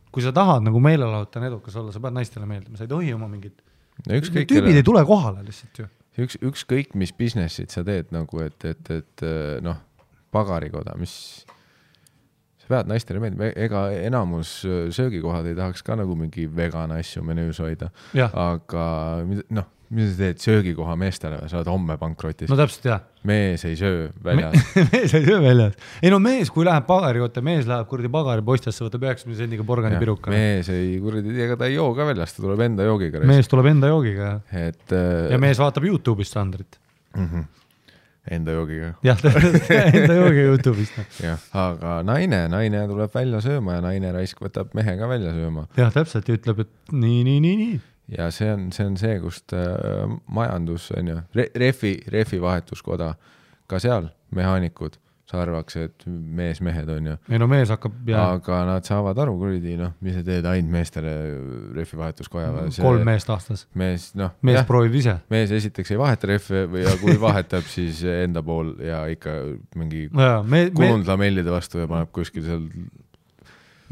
Kui sa tahad nagu meelelahutan edukas olla, sa pead naistele meeldima, sa ei tohi oma mingid tüübid ei tule kohale lihtsalt ju. Ükskõik, mis businessid sa teed nagu, et pagarikoda, mis sa pead naistele meeldima, ega enamus söögikohad ei tahaks ka nagu mingi vegana asju menüüs hoida, aga Mis sa teed söögikoha meestele, sa oled homme pankrotis. No täpselt jah. Mees ei söö väljas. Mees ei söö väljas. Ei no mees, kui läheb pagari oota, mees läheb kuradi pagari postjasse, võtab 90 sendiga porgani piruka. Mees ei kuradi, ega ta ei joo ka väljas, ta tuleb enda joogiga. Mees tuleb enda joogiga. Ja mees vaatab YouTube'ist Sandrit. Enda joogiga. Jah, enda joogiga YouTube'ist. Jah, aga naine tuleb välja sööma ja naine raisk võtab mehe ka välja sööma. Jah, täpselt ja ütleb, et nii. Ja see on see, kust majandus on ju, refi vahetuskoda, ka seal mehaanikud arvaks, et mehed on ju. Ei no mees hakkab aga nad saavad aru, kuridi, mis sa teed ainult meestele refi vahetuskoja. 3 meest aastas. Mees proovib ise. Mees esiteks ei vaheta refi või kui vahetab, siis enda pool ja ikka mingi kulunud lamellide vastu ja paneb kuskil seal.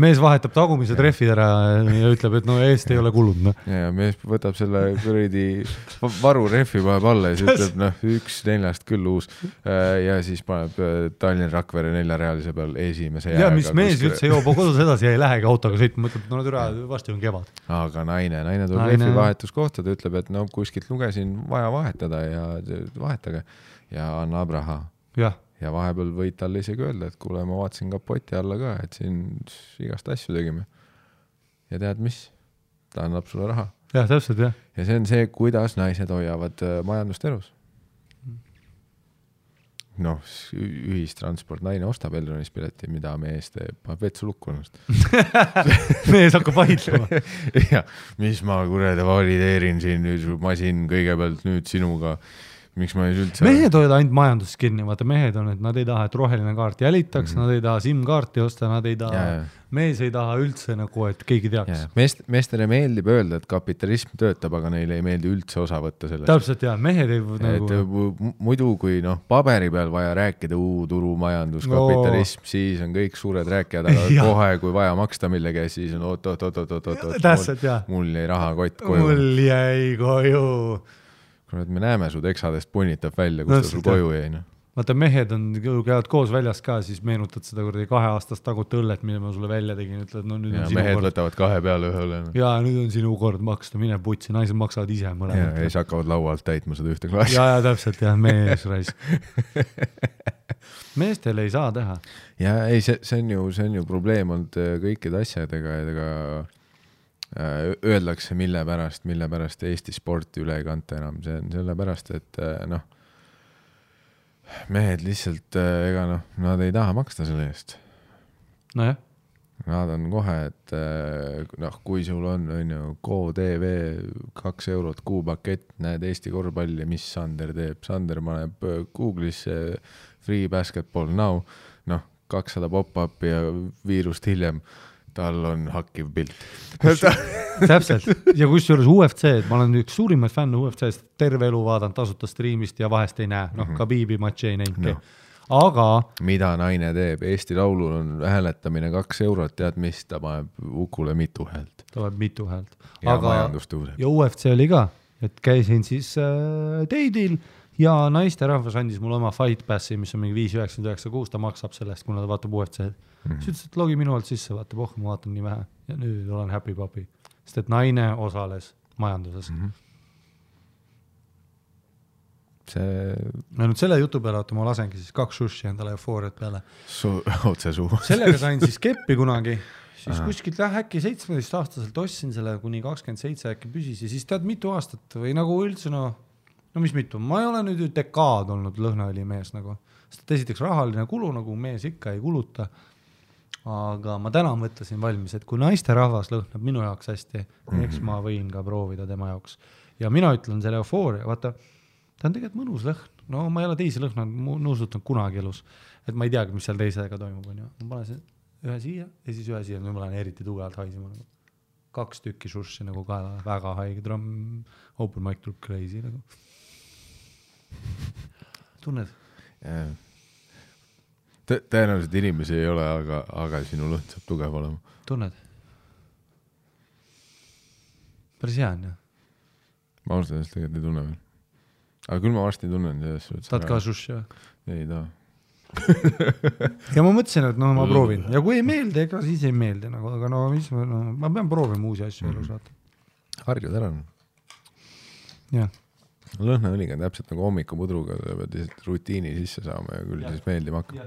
Mees vahetab tagumised refid ära ja ütleb, et no eest ei ole kulud. No. Ja mees võtab selle kuridi varu refi paneb alla ja siis ütleb, 1-4 küll uus. Ja siis paneb Tallinna Rakvere 4-realise peal esimese jääga. Ja mis mees üldse joob kodus edasi ja ei lähegi autoga sõitma, mõtleb, et no türa vasti on kevad. Aga naine tuleb refi vahetuskohta, ta ütleb, et kuskilt lugesin vaja vahetada ja vahetage ja annab raha. Jah. Ja vahepeal võid talle isegi öelda, et kuule, ma vaatasin kapoti alla ka, et siin igast asju tegime. Ja tead mis? Ta annab sulle raha. Jah, täpselt, jah. Ja see on see, kuidas naised hoiavad majandust elus. Ühistransport, naine ostab Elronis pileti, mida mees teeb, paneb vetsu lukkunust. Mees hakkab vaidlema. Ja, mis ma kurede valideerin siin nüüd masin kõigepealt nüüd sinuga. Miks ma ei üldse... Mehed hoiavad ainult majanduses kinni, vaata mehed on, et nad ei taha, et roheline kaart jälitaks, nad ei taha SIM-kaarti osta, nad ei taha, mees ei taha üldse nagu, et keegi teaks. Meestele meeldib öelda, et kapitalism töötab, aga neile ei meeldi üldse osa võtta sellest. Täpselt jah, mehed ei nagu... Muidu kui paberi peal vaja rääkida turumajandus, kapitalism, siis on kõik suured rääkijad, aga kohe kui vaja maksta millegi, siis on mul jäi rahakott koju. Mul jäi koju. Me näeme su teksadest punnitab välja, kus ta sul koju jäi. Vaata, mehed käivad koos väljas ka, siis meenutad seda 2 aastast tagut õllet, mille ma sulle välja tegin, ütled, nüüd on sinu mehed kord. Võtavad 2 peale ühe õle. Ja nüüd on sinu kord maksta, mine putsi, naised maksavad ise mõlemad. Ja siis hakkavad laualt täitma seda ühte klaasi. Ja täpselt, jah, mees raisk. Meestel ei saa teha. Ja ei, see on ju probleem olnud kõikide asjadega, öeldakse, mille pärast Eesti sporti üle ei kanta enam. See on selle pärast, et mehed lihtsalt, nad ei taha maksta selle eest. No jah. Nad on kohe, et kui sul on GoTV 2 eurot kuupakett, näed Eesti korvpalli, mis Sander teeb. Sander paneb Google'isse free basketball now, 200 pop-up ja viirust hiljem. Tal on hakkiv pilt. Täpselt. Ja kus juures UFC, et ma olen üks suurimaid fänne UFC-st, terve elu vaadanud tasuta striimist ja vahest ei näe. Khabibi matši ei näinudki. Aga... Mida naine teeb? Eesti laulul on hääletamine 2 eurot, tead mis? Ta paneb Ukule mitu häält. Ta paneb mitu häält. Ja majandus tõuseb. Ja UFC oli ka, et käisin siis teidil ja naiste rahvas andis mulle oma Fight Passi, mis on mingi 5,996, ta maksab sellest, kuna ta vaatab UFC-d. Siis ütles, et logi minu alt sisse, vaata, ma vaatan nii vähe. Ja nüüd olen happy papi. Sest et naine osales majanduses. Ja nüüd selle jutu peale, ma lasengi siis 2 sushi endale eufooriat peale. Otse suu. Sellega sain siis keppi kunagi. Siis kuskilt äkki 17-aastaselt ostsin selle kuni 27 äkki püsis. Ja siis tead mitu aastat või nagu üldse no mis mitu. Ma ei ole nüüd dekaad olnud lõhnaõli mees nagu. Sest esiteks rahaline kulu nagu mees ikka ei kuluta. Aga ma täna mõtlesin valmis, et kui naiste rahvas lõhnab minu jaoks hästi, eks ma võin ka proovida tema jaoks. Ja mina ütlen selle eufooria, vaata, ta on tegelikult mõnus lõhn. No ma ei ole teisi lõhna nuusutanud kunagi elus. Et ma ei teagi, mis seal teisega toimub. Ma panen ühe siia ja siis ühe siia. Nüüd ma lähen eriti tugevalt haisima. 2 tükki sushi nagu kaela, väga haige. Open mic tuleb crazy nagu. Tunned? Tõenäoliselt inimesi ei ole, aga sinu lõhn saab tugev olema. Tunned? Päris hea on, jah? Ma ausalt ennast tegelikult ei tunne veel. Aga küll ma varsti tunnen. Tahad ka sushi, jah? Ei taha. Ja ma mõtlesin, et ma proovin. Ja kui ei meeldi, ega siis ei meeldi. Aga ma pean proovima uusi asju elus. Harjud ära. Jah. lõhnaõliga on täpselt nagu hommikupudruga, pead lihtsalt rutiini sisse saama ja küll siis meeldima hakkab.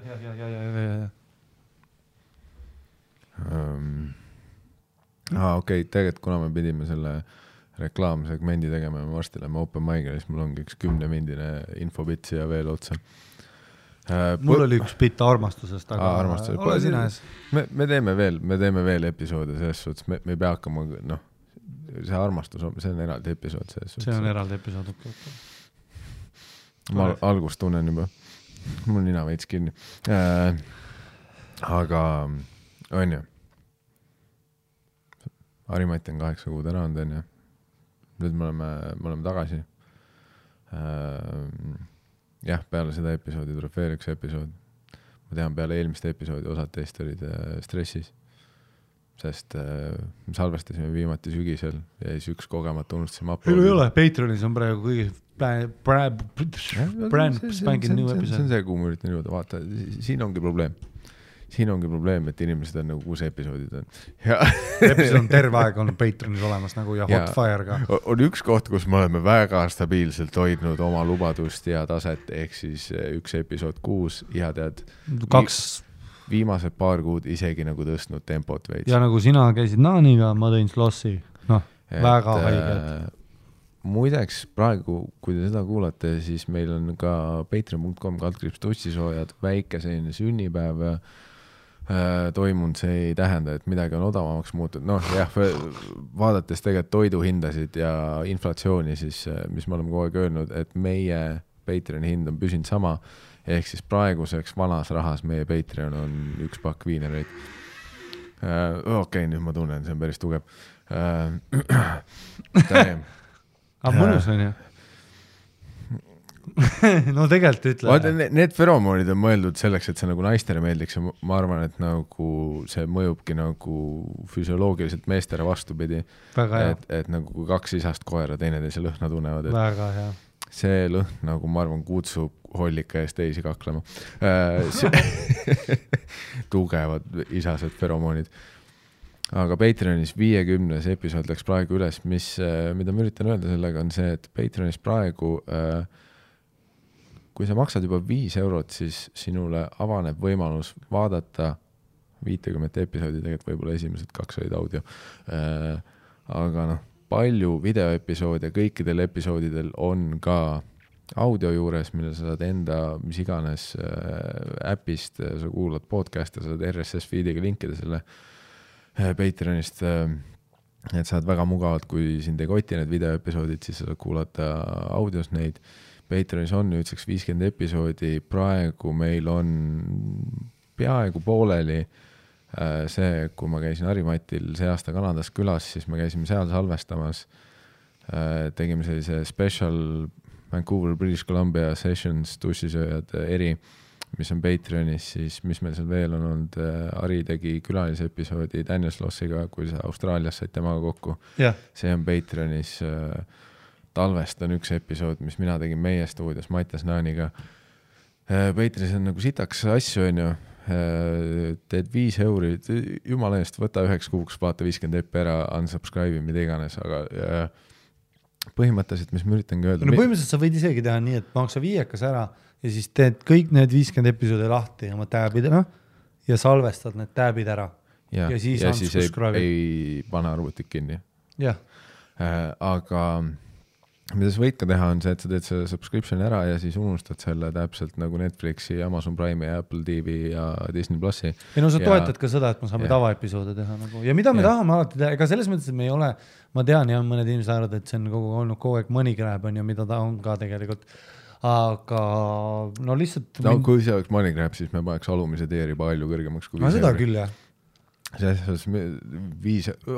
Okei, tegelikult kuna me pidime selle reklaamsegmendi tegema ja me varsti lähme open mic'ile, siis mul ongi üks 10-mindine infobitt siia veel otsa. Mul oli üks bitt armastusest, aga armastusest. Ole sina ees. Me teeme veel episoode selles suhtes, me ei pea hakkama, see armastus, see on eraldi episood selles suhtes. See on eraldi episood, okei. Ma algust tunnen juba, mul nina veits kinni. Aga on ju, Harimati on 8 kuud ära olnud, on ju. Nüüd me oleme tagasi. Jah, peale seda episoodi tuleb veel üks episood. Ma tean, peale eelmiste episoodi osad teist olid stressis, sest me salvestasime viimati sügisel ja siis üks kogemata unustasime uploadi. Ei ole, Patreonis on praegu kõige brand spanking new episood. See on see, kuhu ma üritan jõuda, vaata, siin ongi probleem, et inimesed on nagu 6 episoodid on. Episood on terve aeg olnud Patreonis olemas nagu ja Hotfire ka. On üks koht, kus me oleme väga stabiilselt hoidnud oma lubadust ja taset, ehk siis üks episood 6 ja tead, viimased paar kuud isegi nagu tõstnud tempot veits. Ja nagu sina käisid Naaniga, ma tõin Slossi, väga haiged. Muideks praegu, kui te seda kuulate, siis meil on ka patreon.com/tussisoojad väike selline sünnipäev toimunud, see ei tähenda, et midagi on odavamaks muutud. Vaadates tegelikult toiduhindasid ja inflatsiooni, siis mis me oleme kogu aeg öelnud, et meie Patreoni hind on püsinud sama, ehk siis praeguseks vanas rahas meie Patreon on 1 pakk viinereid. Okei, nüüd ma tunnen, see on päris tugev. Aga mõnus on ju? No tegelikult ütle. Vaata, need feromoonid on mõeldud selleks, et see nagu naistele meeldiks ja ma arvan, et nagu see mõjubki nagu füsioloogiliselt meestele vastupidi. Et nagu kui 2 isast koera teineteise lõhna tunnevad. Väga hea. See lõhn nagu ma arvan kutsub hollika ees teisi kaklema. Tugevad isased feromoonid. Aga Patreonis 50 episood läks praegu üles, mida ma üritan öelda sellega on see, et Patreonis praegu kui sa maksad juba 5 €, siis sinule avaneb võimalus vaadata 50 episoodi, tegelikult võib-olla esimesed 2 olid audio. Aga palju videoepisoode kõikidel episoodidel on ka audio juures, mille sa saad enda mis iganes äpist, sa kuulad podcast'e, sa saad RSS feediga linkida selle Patreonist, et saad väga mugavalt, kui sind ei koti need videoepisoodid, siis sa saad kuulata audios neid. Patreonis on nüüdseks 50 episoodi, praegu meil on peaaegu pooleli see, kui ma käisin Harimatil see aasta Kanadas külas, siis me käisime seal salvestamas, tegime sellise special Vancouver, British Columbia Sessions tussisööjad eri, mis on Patreonis, siis mis meil seal veel on olnud, Hari tegi külalise episoodi Daniel Slossiga, kui sa Austraalias said temaga kokku. See on Patreonis. Talvest on üks episood, mis mina tegin meie stuudios Mattias Naaniga. Patreonis on nagu sitaks asju, on ju. Teed 5 €, jumala eest, võta 9 kuuks, vaata 50 epi ära, unsubscribe, mida iganes, aga põhimõtteliselt, mis ma üritangi öelda. Põhimõtteliselt sa võid isegi teha nii, et maksa 5 ära ja siis teed kõik need 50 episoodi lahti oma tabid ja salvestad need tabid ära. Ja siis ei pane arvutit kinni. Aga mida sa võid ka teha on see, et sa teed selle subscription ära ja siis unustad selle täpselt nagu Netflixi, Amazon Prime ja Apple TV ja Disney Plussi. Ja sa toetad ka seda, et me saame tavaepisoode teha nagu. Ja mida me tahame alati teha, ega selles mõttes, et me ei ole, ma tean ja mõned inimesed arvad, et see on olnud kogu aeg money grab on ja mida ta on ka tegelikult. Aga lihtsalt... kui see oleks money grab, siis me paneks alumise teeri palju kõrgemaks kui 5 €. Seda küll, jah.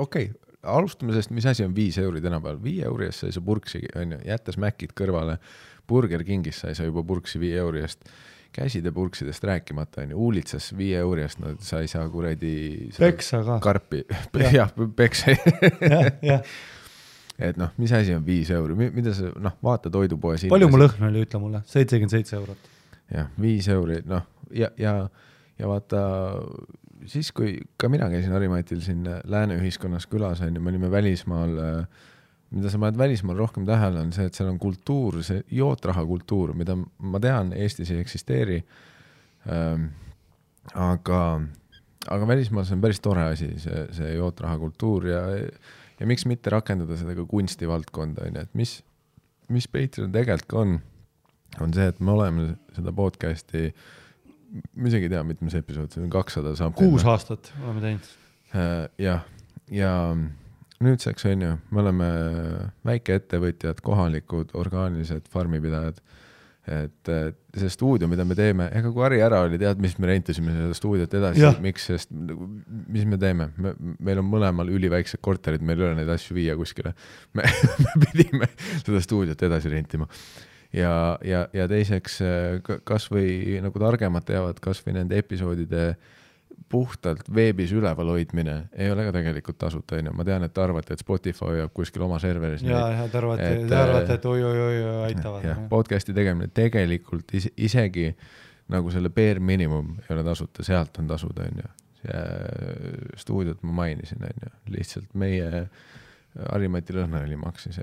Okei. Alustame sellest, mis asi on 5 € tänapäeval. 5 € eest sai sa purksi, jättes mäkid kõrvale. Burger Kingis sai sa juba purksi 5 € eest. Käside purksidest rääkimata, uulitsas 5 € eest, sa ei saa kuradi peksa ka. Karpi. Jah, peksa. Et mis asi on 5 €? Mida sa, vaata toidupoes. Palju mu lõhn oli, ütle mulle? 77 €. Jah, 5 €. Ja vaata... Siis kui ka mina käisin Harimatil siin lääne ühiskonnas külas, me olime välismaal mida sa paned välismaal rohkem tähele, on see, et seal on kultuur, see jootraha kultuur, mida ma tean, Eestis ei eksisteeri. Aga välismaal see on päris tore asi, see jootraha kultuur ja miks mitte rakendada seda ka kunstivaldkonda, et mis Patreon tegelikult on see, et me oleme seda podcasti, ma isegi ei tea, mitmes episood, see on 200 saab. 6 aastat oleme teinud. Ja nüüdseks on ju, me oleme väikeettevõtjad, kohalikud, orgaanilised farmipidajad, et see stuudio, mida me teeme, ega kui Harri ära oli, tead, mis me rentisime seda stuudiot edasi, miks, sest mis me teeme? Meil on mõlemal üliväiksed korterid, meil ei ole neid asju viia kuskile. Me pidime seda stuudiot edasi rentima. Ja teiseks, kas või nagu targemad teavad, kas või nende episoodide puhtalt veebis üleval hoidmine ei ole ka tegelikult tasuta. Ma tean, et te arvate, et Spotify hoiab kuskil oma serveris. Ja te arvate, et oi, aitavad. Ja, podcasti tegemine tegelikult isegi nagu selle bare minimum ei ole tasuta, sealt on tasud. Stuudiot ma mainisin, lihtsalt meie Harimati Lõhnali maksis,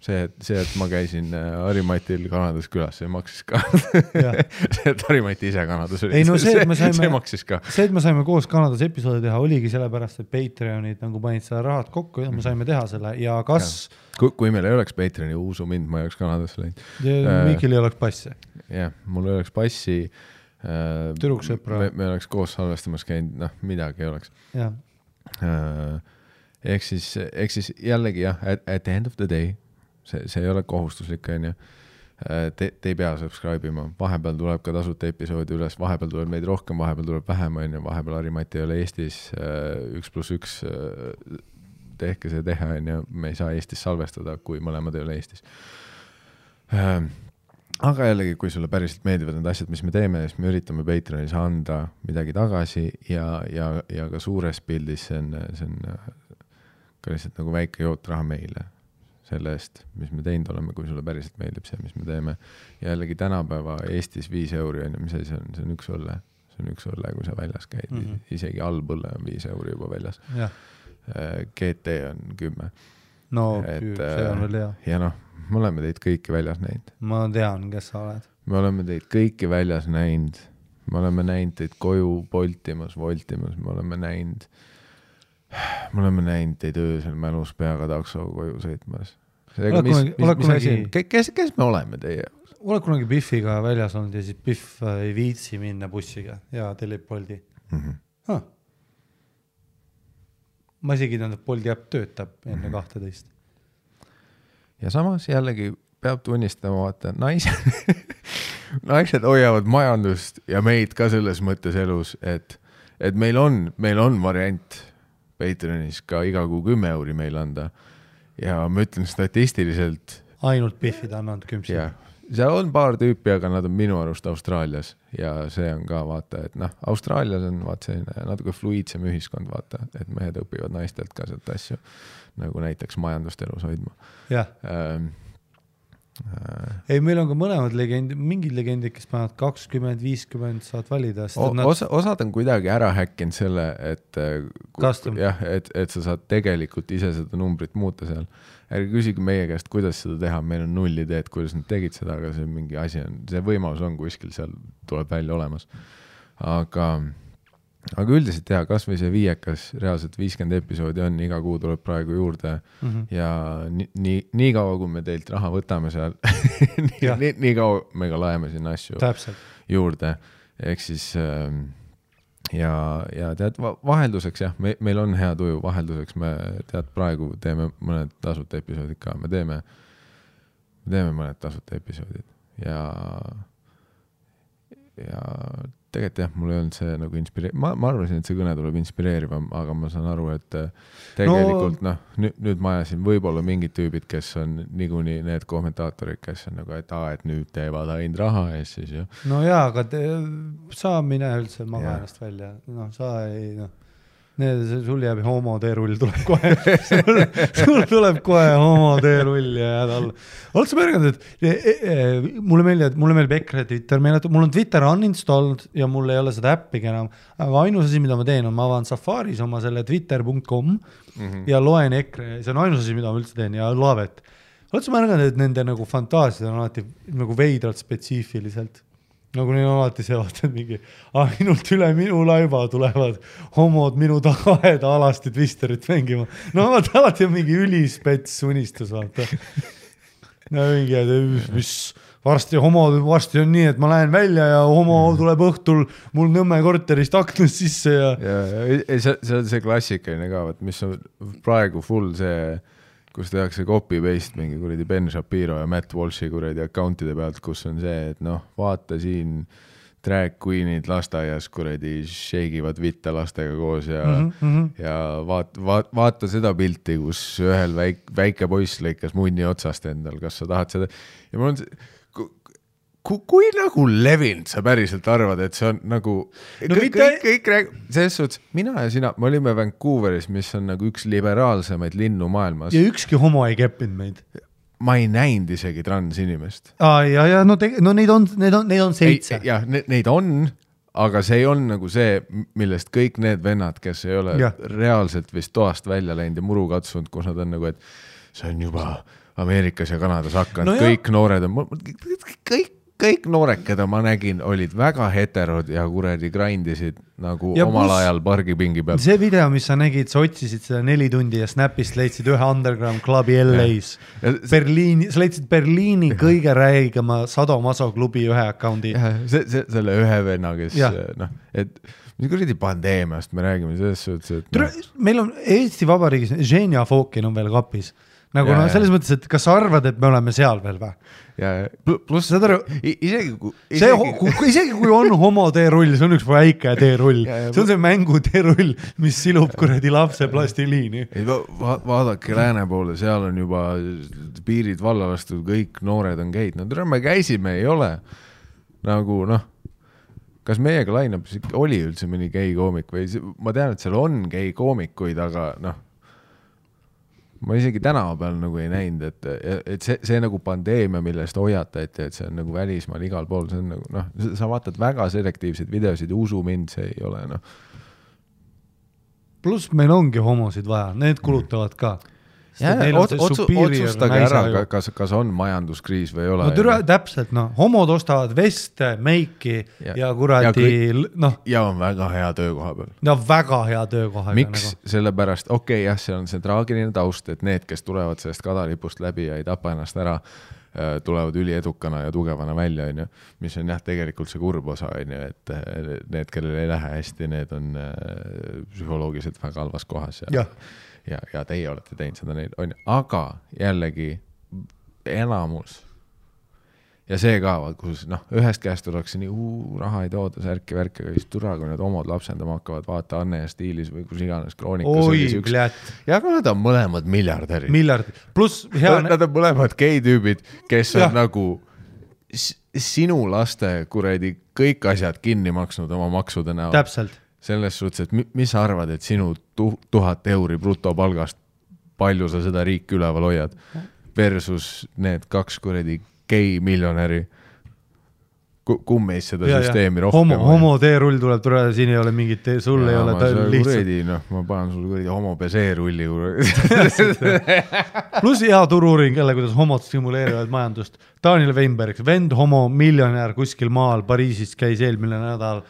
see, et ma käisin Harimatil Kanadas külas, see maksis ka. See, et Harimati ise Kanadas oli, see maksis ka. See, et me saime koos Kanadas episoodi teha, oligi sellepärast, et Patreonid nagu panid seda rahad kokku ja me saime teha selle ja kas... Kui meil ei oleks Patreoni, usu mind, ma ei oleks Kanadasse läinud. Mikil ei oleks passi. Jah, mul ei oleks passi. Türuksõpra. Me oleks koos salvestamas käinud, midagi ei oleks. Jah. Ehk siis jällegi jah, at the end of the day, see ei ole kohustuslik, te ei pea subscribe-ima, vahepeal tuleb ka tasuta episoodi üles, vahepeal tuleb meid rohkem, vahepeal tuleb vähem, vahepeal Harimati ei ole Eestis 1+1, tehke see teha, me ei saa Eestis salvestada, kui mõlemad ei ole Eestis. Aga jällegi, kui sulle päriselt meeldivad need asjad, mis me teeme, siis me üritame Patreonis anda midagi tagasi ja ka suures pildis see on ka lihtsalt nagu väike jootraha meile selle eest, mis me teinud oleme, kui sulle päriselt meeldib see, mis me teeme. Ja jällegi tänapäeva Eestis 5 euri on, mis see on? See on 1 õlle. See on 1 õlle, kui sa väljas käid. Isegi allpõlle on 5 euri juba väljas. GT on 10. No, see on veel hea. Ja me oleme teid kõiki väljas näinud. Ma tean, kes sa oled. Me oleme teid kõiki väljas näinud. Me oleme näinud teid koju voltimas, me oleme näinud teid öösel mälus peaga takso koju sõitmas. Kes me oleme teie? Oled kunagi Biffiga väljas olnud ja siis Biff ei viitsi minna bussiga ja tellib Bolti? Ma isegi tähendab, Bolti äpp töötab enne 12. Ja samas jällegi peab tunnistama, vaata, naised hoiavad majandust ja meid ka selles mõttes elus, et meil on variant Patreonis ka iga kuu 10 euri meil anda ja ma ütlen statistiliselt ainult Biffid annanud 10. Seal on paar tüüpi, aga nad on minu arust Austraalias ja see on ka vaata, et Austraalias on selline natuke fluidsem ühiskond, vaata, et mehed õpivad naistelt ka sealt asju, nagu näiteks majandust elus hoidma. Ei, meil on ka mõlemad legendid, mingid legendid, kes panevad 20, 50, saad valida. Osad on kuidagi ära häkkinud selle, et sa saad tegelikult ise seda numbrit muuta seal. Ärge küsige meie käest, kuidas seda teha, meil on 0 ideed, kuidas nad tegid seda, aga see mingi asi on, see võimalus on kuskil, seal tuleb välja olemas. Aga üldiselt kas või see 5, reaalselt 50 episoodi on, iga kuu tuleb praegu juurde ja nii kaua, kui me teilt raha võtame seal, nii kaua me ka laeme sinna asju juurde. Ehk siis ja tead, vahelduseks meil on hea tuju, vahelduseks me tead praegu teeme mõned tasuta episoodid ka, me teeme mõned tasuta episoodid ja tegelikult mul ei olnud see nagu ma arvasin, et see kõne tuleb inspireerivam, aga ma saan aru, et tegelikult nüüd ma ajasin võib-olla mingid tüübid, kes on niikuinii need kommentaatorid, kes on nagu, et nüüd teevad ainult raha ja siis No jaa, aga sa mine üldse maga ennast välja. Sa ei sul jääb homo teerull tuleb kohe sul tuleb kohe homo teerull ja jääd alla. Oled sa märganud, et mulle meeldib EKRE Twitter, mul on Twitter uninstalled ja mul ei ole seda äppigi enam, aga ainus asi, mida ma teen, on ma avan Safaris oma selle twitter.com ja loen EKRE, see on ainus asi, mida ma üldse teen ja Laavet. Oled sa märganud, et nende nagu fantaasiad on alati nagu veidralt spetsiifiliselt? Nagu neil on alati see vaatad mingi, ainult üle minu laiba tulevad homod minu tagaeda alasti twisterit mängima. No vaata, alati on mingi ülispets unistus, vaata. No mingi, mis varsti on nii, et ma lähen välja ja homo tuleb õhtul mul Nõmme korterist aknast sisse ja... see on see klassikaline ka, mis on praegu full see... kus tehakse copy-paste mingi kuradi Ben Shapiro ja Matt Walshi kuradi accountide pealt, kus on see, et vaata siin drag queenid lasteaias kuradi sheigivad vitte lastega koos ja, ja vaata seda pilti, kus ühel väike poiss lõikas munni otsast endal, kas sa tahad seda ja mul on see kui nagu levinud sa päriselt arvad, et see on nagu kõik selles suhtes, mina ja sina, me olime Vancouveris, mis on nagu üks liberaalsemaid linnu maailmas. Ja ükski homo ei keppinud meid. Ma ei näinud isegi transinimest. Neid on 7. Jah, neid on, aga see ei on nagu see, millest kõik need vennad, kes ei ole reaalselt vist toast välja läinud ja muru katsunud, kus nad on nagu, et see on juba Ameerikas ja Kanadas hakanud, kõik noored on, kõik noored, keda ma nägin, olid väga heterod ja kuradi grindisid nagu ja omal ajal pargipingi peal. See video, mis sa nägid, sa otsisid seda 4 tundi ja Snapist leidsid ühe underground klubi LA-s. Sa leidsid Berliini kõige räigema Sadomaso klubi ühe account'i. Selle ühe venna, kes et mis kuradi pandeemiast me räägime selles suhtes, et meil on Eesti Vabariigis Ženja Fokin on veel kapis. Nagu selles mõttes, et kas sa arvad, et me oleme seal veel või? Ja pluss isegi kui on homo teerull, see on üks väike teerull. See on see mängu teerull, mis silub kuradi lapse plastiliini. Vaadake lääne poole, seal on juba piirid valla lastud, kõik noored on geid. No me käisime, ei ole. Nagu kas meiega lainab, oli üldse mõni gei koomik või ma tean, et seal on gei koomikuid, aga ma isegi tänava peal nagu ei näinud, et see nagu pandeemia, millest hoiatati, et see on nagu välismaal igal pool, see on nagu, sa vaatad väga selektiivseid videosid ja usu mind, see ei ole, Pluss meil ongi homosid vaja, need kulutavad ka. Otsustage ära, kas on majanduskriis või ei ole. Täpselt, homod ostavad veste, meiki ja kuradi... Ja on väga hea töökoha peal. Ja väga hea töökoha. Miks? Sellepärast, see on see traagiline taust, et need, kes tulevad sellest kadalipust läbi ja ei tapa ennast ära, tulevad üliedukana ja tugevana välja, mis on tegelikult see kurb osa, et need, kellel ei lähe hästi, need on psühholoogiliselt väga halvas kohas ja teie olete teinud seda neid, aga jällegi enamus ja see ka, kus ühest käest oleks nii, raha ei tooda, särki, värki, aga siis türa, kui need omad lapsendama hakkavad, vaata Anne ja Stiilis või kus iganes kroonikas ja aga nad on mõlemad miljardärid. Pluss nad on mõlemad gei-tüübid, kes on nagu sinu laste kuradi kõik asjad kinni maksnud oma maksude näol. Täpselt. Selles suhtes, et mis sa arvad, et sinu 1000 euri brutopalgast, palju sa seda riiki üleval hoiad versus need 2 kuradi gei miljonäri, kummeis seda süsteemi rohkem. Homo teerull tuleb turele, siin ei ole mingit sul ei ole lihtsalt. Ma panen sul kuradi homo peseerulli. Plus hea turuuring jälle, kuidas homod stimuleerivad majandust. Daniel Weinberg, vend homo miljonär kuskil maal Pariisis käis eelmine nädal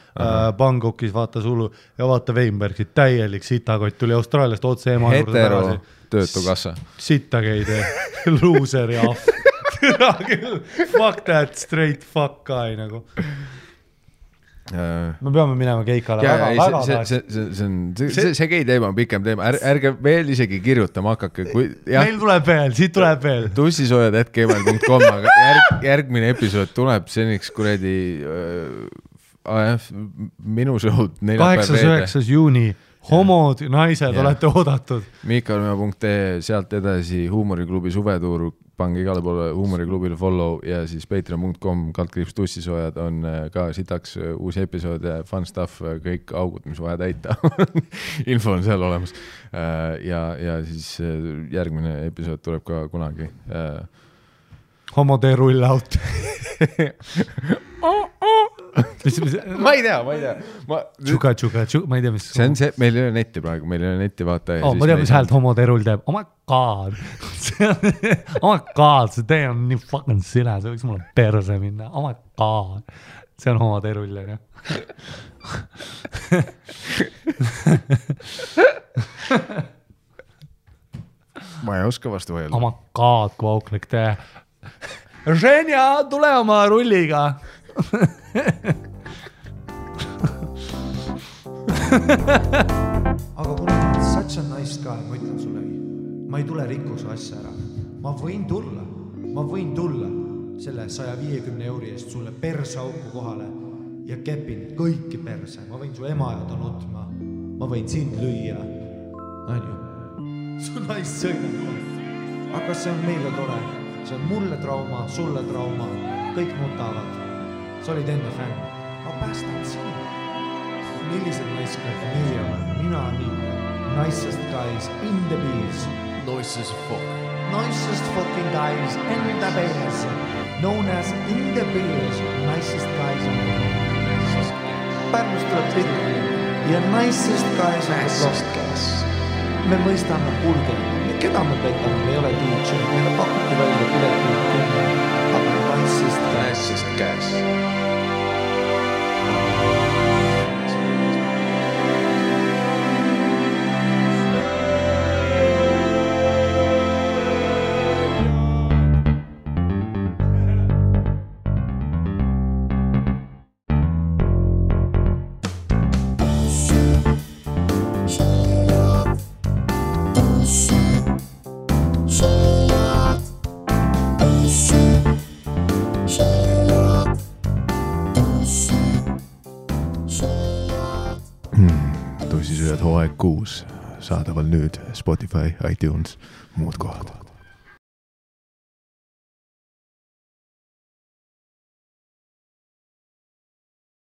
Bangkokis, vaata sulu ja vaata Weinbergit, täielik sitakott tuli Austraaliast otse ema juurde tagasi. Hetero töötukassa. Sitakeid, loser ja ahv. Fuck that, straight fuck guy nagu. Me peame minema keikale see gei teema on pikem teema, ärge veel isegi kirjutama hakake meil tuleb veel, siit tuleb veel tussisoojad@gmail.com aga järgmine episood tuleb seniks kuradi minu show'd 8.9. juuni homod, naised olete oodatud Miikalmäe.ee, sealt edasi Huumoriklubi suvetuur pange igale poole huumoriklubile follow ja siis patreon.com/tussisoojad on ka sitaks uusi episoode, fun stuff, kõik augud, mis vaja täita. Info on seal olemas. Ja siis järgmine episood tuleb ka kunagi. Homode rull out. ma ei tea. Tšuka, ma ei tea, mis... See on see, meil ei ole netti praegu, meil ei ole netti vaata. Ma tean, mis häält homode rull teeb. Oh my god. See tee on nii fucking sile, see võiks mulle perse minna. Oh my god. See on homode rull, ja. Ma ei oska vastu võelda. Oh my god, kui auklik tee. Ženja, tule oma rulliga. Aga kuna such a nice guy, ma ütlen sullegi, ma ei tule rikkuse asja ära. Ma võin tulla selle 150 € eest sulle persauku kohale ja kepin kõiki perse. Ma võin su ema ja ta nutma. Ma võin sind lüüa. Su naist sõidab. Aga see on meile tore. See on mulle trauma, sulle trauma. Kõik nutavad. Sa olid enne fänn. Ma päästan sinu. Millised naiskad meie oleme? Mina nii. Nicest guys in the bees. Nicest fucking guys in the bees. Known as in the bees. Nicest guys in the bees. Pärnust tuleb pildi. Ja nicest guys in the bees. Me mõistame kulge. Keda me petame? Me ei ole DJ. Meile pakuti välja pileti. Aga nicest guys. Tussisööjad hooaeg 6 saadaval nüüd Spotify, iTunes, muud kohad.